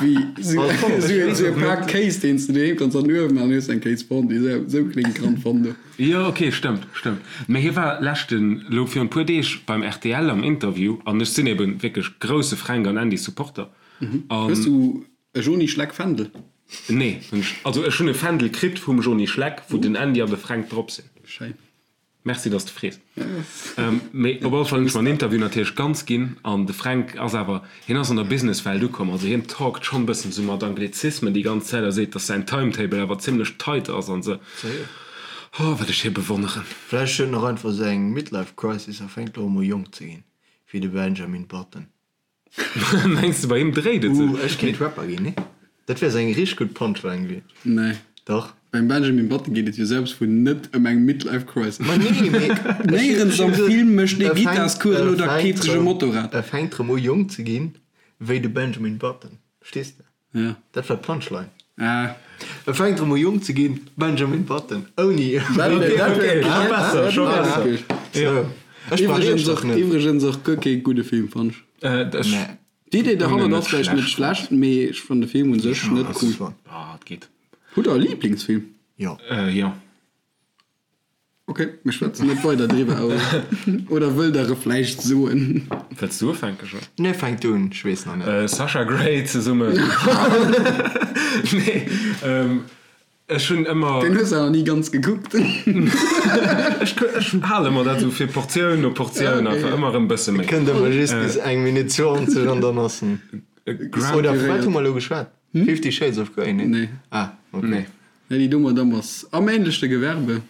wéi esou e Pak Kéis, deen s de doheem kanns an den Uewen maachen, hues eng Kéisfondue. Esou kléngt Gran Fondo. Jo, ok, stëmmt, stëmmt. Mä hie war leschten, elo virun e puer Deeg beim rtl am Interview, an ech sinn eben wierklech grousse Fränk an Andy Supporter. Hues du. E Joni Schleck Fändel? Nee, hunn ech, also ech hunn e Fändel kritt vum Joni Schleck, wou den Andy an de Fränk drop sinn. Schéin. Merci, dass de frees. Mee op alle Fall hunn ech mer den Interview natierlech ganz ginn an de Fränk ass awer, hien ass an der Businesswelt ukomm, also hien talkt schonn e bëssen esou mat Anglizismen déi ganz Zäit a seet, dass säin Timetable awer zimmlech tight ass an esou. Oh, wat ech hie bewonneren. Vläicht huet en och einfach esou eng Midlife Crisis a fänkt elo emol jonk ze ginn, wéi de Benjamin Button. Mengs de bei him dréit et sech? Ooh, ech kéint Rapper ginn, nee? Dat wär sou eng richteg gutt Punchline gewiescht. Nee. Dach. Beim Benjamin Button geet et jo selbst vun net ëm eng Midlife Crisis. Ma nee, mee Néierens am Film mécht ee Gittarscoursen oder keeft sech e Motorrad. E fänkt rëm u jonk ze ginn, wéi de Benjamin Button. Verstees de? Ja. Dat war d'Punchline. Ah. E fänkt erëm u jonk ze ginn, Benjamin Button, ouni. Scho besser, scho besser. Jo. Ech brauch Iwwregens iech och, och net. iwwregens och guer kee gudde Film, fannt ech. Ech. Nee. D'Idee derhannert Net ass vläicht net schlecht. schlecht, mee ech fann de Film un sech net cool. Ah, et geet. Hutt der e Liblingsfilm? Jo. Jo. Ok, mir schwätzen net weider driwwer, oder wëllt der e vläicht soen? Wëlls du ufänken, Jean? Nee, fänk du un, ech weess nach net. Sasha Grey zesummen. Nee, ech hunn ëmmer. Deen hues de awer ni ganz gekuckt. Ech hale mer dat esou fir Portioun no Portioun, einfach ëmmer erëm e bësse méi. Kënnt ëmmer just bis eng Minutt 20 an dann ass en. Oder vu wat hu mer elo geschwat? Fifty Shades of Grey, nee? Nee. Ah, ok. Nee. Nee, déi do Madame ass am ähnlechte Gewerbe.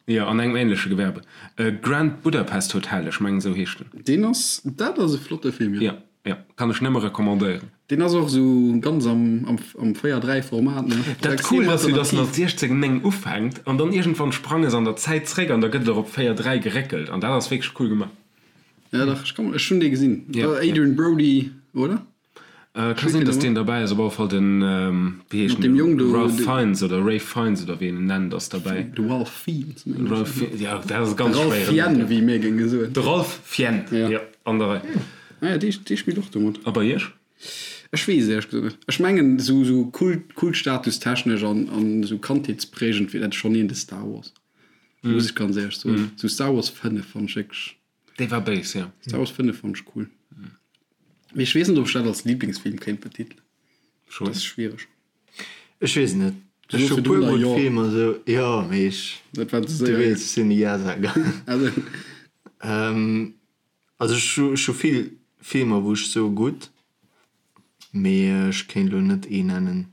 Jo, an engem ähnleche Gewerbe. Grand Budapest Hotel, ech mengen esou heescht en. Deen ass, dat ass e flotte Film, jo. Jo, jo, kann ech nëmme recommandéieren. Deen ass och esou ganz am, am, am 4, 3 Format, ne? Dat cool ass jo, dass en als 16, 9 ufänkt an dann iergendwann sprange se an der Zäit zréck an da gëtt et och op 4, 3 geréckelt an dat ass wierklech cool gemaach. Ja, dach, ech kann, ech hunn dee gesinn. Jo. Adrien Brody, oder? Ka sinn, dass deen derbäi ass. Op alle Fall den, wéi heescht den? Jong do, Ralph Fiennes oder Rafe Fiennes oder wéi een en nennt, ass derbäi. De Ralph Fiennes, mengen ech. Ralph Fiennes, jo, dat ass e ganz schwéieren. De Ralph Fiennes, wéi mir géinge soen. De Ralph Fiennes, jo, an der Rei. Ah jo, dee, dee spillt och do mat. A bei iech? Ech weess et éierlech gesot net. Ech mengen, esou, esou Kult, Kultstatustechnesch an, an esou kandheetsprägend wier dat schonn een de Star Wars. Muss ech ganz éierlech soen. Esou Star Wars 5 fannt ech wierklech. Dee war béis, jo. Star Wars 5 fand ech cool. Mee ech weess net, ob ech dat als Lieblingsfilm kéint betitelen. Schon. Dat ass schwiereg. Ech weess et net. Du Ech soos hu puer virdrun gutt jo. Filmer sou, jo, mee ech, Dat war ze du séier. weess, ech sinn e Ja-Sager. Also, Also ech hu, ech hu vill Filmer, wou ech soe gutt, Mee ech kéint elo net ee nennen.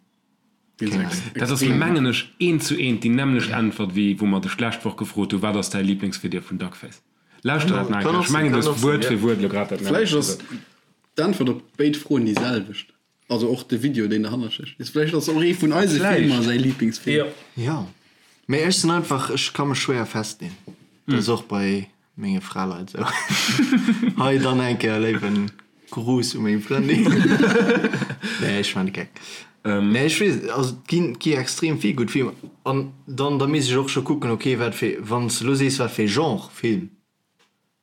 Keng Ahnung. Dat ass mengen ech eent zu eent déi nämmlecht Äntwert wéi wou mer dech d'lescht Woch gefrot hu wat ass däi Liblingsvideo vun Duckface? Lauschter dat nach eng Kéier, ech mengen du hues Wuert fir Wuert elo grad dat Vläicht nämmlecht ass gesot. d'Äntwert op béid Froen déi selwecht. Also och de Video deen derhannert stécht. Vläicht ass och ee vun eise Filmer säi Liblingsfilm. Jo. Jo. Mee ech sinn einfach, ech ka mech schwéier festleen. Dat ass och bei Menge Fraleit sou. Hei dann eng Kéier léiwen Gruß u meng Frëndin. Nee, ech man de Geck. Nee, ech weess, also et ginn, et gi extrem vill gutt Filmer. An dann, da misst ech och scho kucken, okay, wat fir, wann s de elo sees, wat fir ee Genre Film,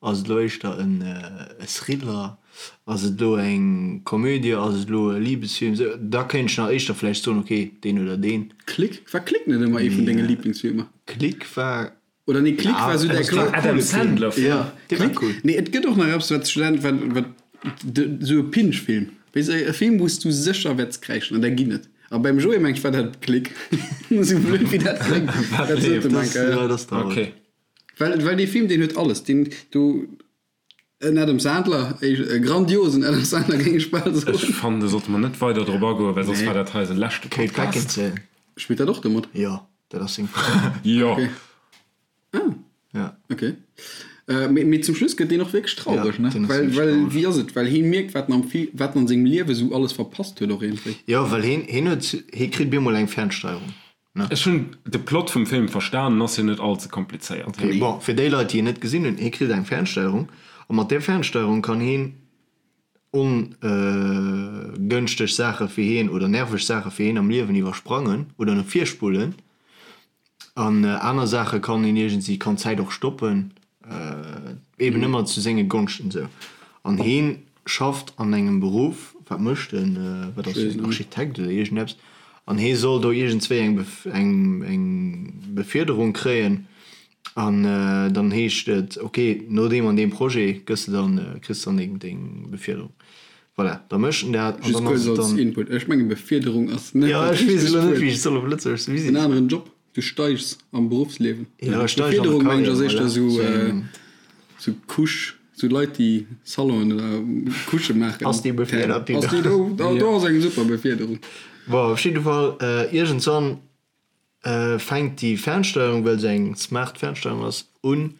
ass et elo éischter en e Thriller, ass et elo eng Komödie, ass et elo e Libesfilm, sou, da kéint ech nach éischter vläicht soen, okay, deen oder deen. Click? War Click net ëmmer ee vun denge Liblingsfilmer? Click war Oder nee, Click war sou däi Kla Adam Sandler Film. Ja, Click. Nee, et gëtt och nach eppes, wat Student, wat, wat, sou e Pinch-Film. Weess e Film, wou s du sécher wäerts kräischen, an där ginn et. A beim Joé mengt ech war dat Click. Sou blöd wéi dat kléngt, dat sot e meng Kéier. Ja, dat ass traurig. Okay. Well, well dee Film, deen huet alles. Deen, du, en Adam Sandler, e grandiosen Adam Sandler, géing ech bal soen. Ech fannen, do sollte mer net weider drop agoen, well soss Nee. war dat hei eise leschte Kate Podcast. Beckinsale. Spillt dat och do mat? Jo, dat ass seng Fra. Jo. Okay. Ah. Ja. Okay. Äh, mee, mee zum Schluss gëtt deen och wierklech traureg, Ja, ne? deen ass Well, wierklech well, traureg. wéi ass et? Well hie mierkt, wat en am Fi-, wat en an sengem Liewe sou alles verpasst huet och iergendwéi. Jo, well hien, hien huet, hie kritt bemol eng Fernsteierung, ne? Ech hunn de Plot vum Film verstanen, ass jo net all ze komplizéiert. Okay, bon, fir déi Leit, déi en net gesinn hunn, hie kritt eng Fernsteierung a mat där Fernsteierung kann hien ongënschteg Saache fir hien oder nerveg Saache fir hien am Liewen iwwersprangen oder no vir spullen. An aner Saache kann een iergendwéi, kann d'Zäit och stoppen, eben ëmmer zu senge Gonschten esou. An hien schafft an engem Beruff, wat mécht en, wat ass en, Architekt oder iergendeppes, an hie soll do iergendswéi eng eng Befierderung kréien. An dann heescht et, ok, no deem an deem Projet gëss de dann, kriss de dann deng Befierderung. Voilà, da mécht en dat an dann ass et dann. Input, ech menge Befiederung ass net dat richtegt Wuert. Jo, ech weess elo net, wéi ech et soll op Lëtzebuergesch soen. En aneren Job, du steigs am Beruffsliewen. Jo, ech steig an der Karriär, voilà. Befiederung meng ech ass éischter esou, esou Couche, esou Leit déi Salonen oder Couchë maachen. Ass déi befiedert, déi do? Ass déi do? Do ass eng super Befiederung. Bon, op jidde Fall, iergendswann fänkt déi Fernsteierung, well se eng smart Fernsteierung ass, un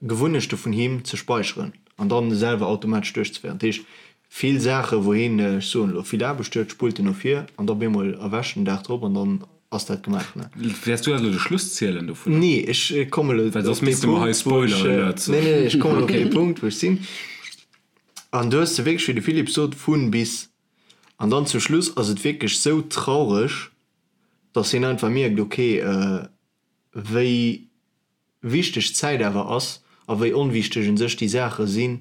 Gewunnechte vun him ze speicheren an dann selwer automatesch duerchzeféieren. Dat heescht, vill Saache wou hien, ech soen elo, vill Aarbecht huet, spullt en no vir an da op eemol erwächt en den Dag drop an dann ass dat gemaach. Wäers du eis elo de Schluss zielen dovunner? Nee, ech kommen elo Well soss misste mer hei Spoiler Alert soen. Nee, nee, ech kommen elo op dee Punkt wou ech sinn. An do hues de wierklech, wéi de Philippe sot, vun bis. An dann zum Schluss ass et wierklech sou traureg, dass hien einfach mierkt, ok, wéi wichteg d'Zäit awer ass a wéi onwichteg un sech déi Saache sinn,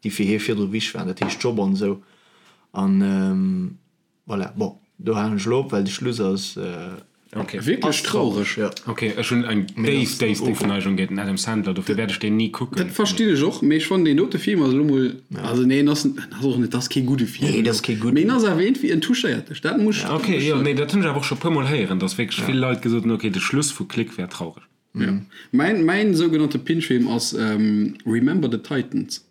déi fir hie virdru wichteg waren, dat heescht Job an esou. An voilà, bon, do halen ech elo op, well de Schluss ass. Ok. Wierklech traureg. Jo. Ok, ech hunn eng déif, déif Ofneigung géint den Adam Sandler, dofir wäert ech deen ni kucken. Dat verstinn ech och, mee ech fannen deen dote Film ass elo mol, also nee, en ass, en ass och net, dat ass kee gudde Film. Nee, dat ass kee gudden. Mee en ass awer iergendwéi, en touchéiert dech, dat muss ech. Ok, jo, nee, dat hunn ech awer och scho e puermol héieren, dass wierklech vill Leit gesot hunn, ok, de Schluss vu Click wär traureg. Jo. Mäin, mäin sougenannte Pinch-Film ass Remember the Titans.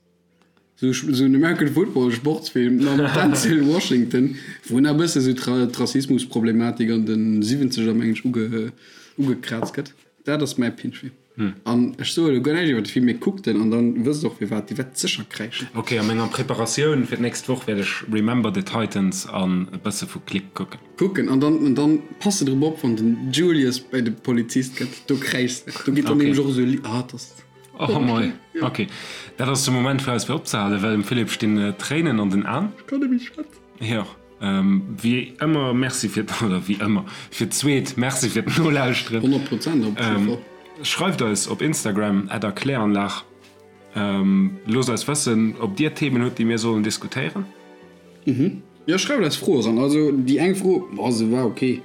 Sou en American Football Sportsfilm mam Denzel Washington, wou nach e bësse sou d'Rassismusproblematik an de Siwwenzeger meng ech ugekraazt gëtt. Dat ass mäi Pinch-Film. An ech soe elo guer näischt iwwer de Film, mee kuckt en an dann wësst och firwat. Dir wäert sécher kräischen. Ok, a menger Preparatioun fir d'nächst Woch wäert ech Remember the Titans an e bësse vu Click kucken. Kucken an dann an dann pass de drop op, wann den Julius bei de Polizist gëtt, do kräischs de. Do geet dann nämlech och esou e Li, ah, 't ass. Oh mei, ok. Dat ass de Moment fir eis fir opzehalen, well dem Philippe stinn d'Tréinen an den Aen. Ech kann net méi schwätzen. Jo, wéi ëmmer Merci fir, oder wéi ëmmer, fir d'zweet Merci fir d'Nolauschteren. 100 Prozent op jidde Fall. Schreift eis op Instagram at erkläranlag. Loosst eis wëssen, ob dir Themen hutt, déi mir sollen diskutéieren. Jo, schreift eis Froe ran. Also déi eng Fro, boah, se war ok,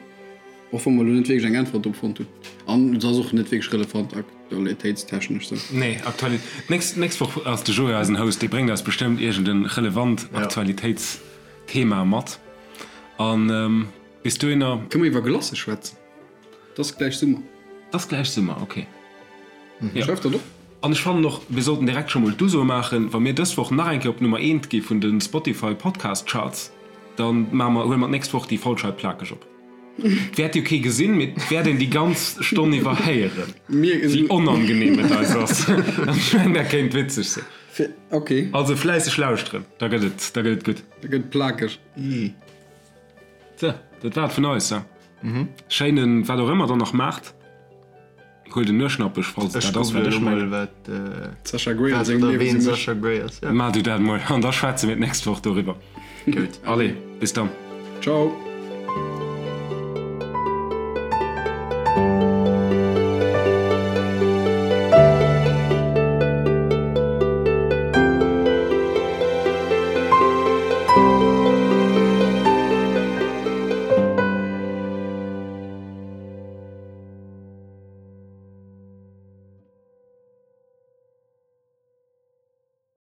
och wa mer elo net wierklech eng Äntwert drop fonnt hunn. An se ass och net wierklech relevant aktualitéitstechnesch sou. Nee, Aktuali d'nächst, d'nächst Woch ass de Joé eisen Host, dee bréngt eis bestëmmt iergend en relevant Aktualitéitsthema mat. An bis dohinner. Kënne mer iwwer Glace schwätzen? 't ass gläich Summer. 't ass gläich Summer, ok. Jo. Schreif dat op. An ech fannen och, mir sollten direkt scho mol d'Uso maachen, wa mir dës Woch nach eng Kéier op Nummer eent gi vun de Spotify Podcast Charts, da maache mer, huele mer d'nächst Woch déi Folg hei plakeg op. 't wäert jo kee gesinn, mee 't wäert een déi ganz Stonn iwwer héieren, wéi onangenehm et eis ass. An ech mengen, dat kéint witzeg sinn. Ok. Also fläisseg lauschteren, da gëtt et, da gëtt et gutt. Da gëtt et plakeg. Sou, dat war et vun eis. Schéinen, wat och ëmmer der nach maacht. Huel den Nueschnappech, falls et dat ass, wat ech mengen. Sasha Grey a sengem Liewen sinn mech. Maach du dat mol an da schwätze mir d'nächst Woch doriwwer. Gutt. Allez, bis dann. Ciao.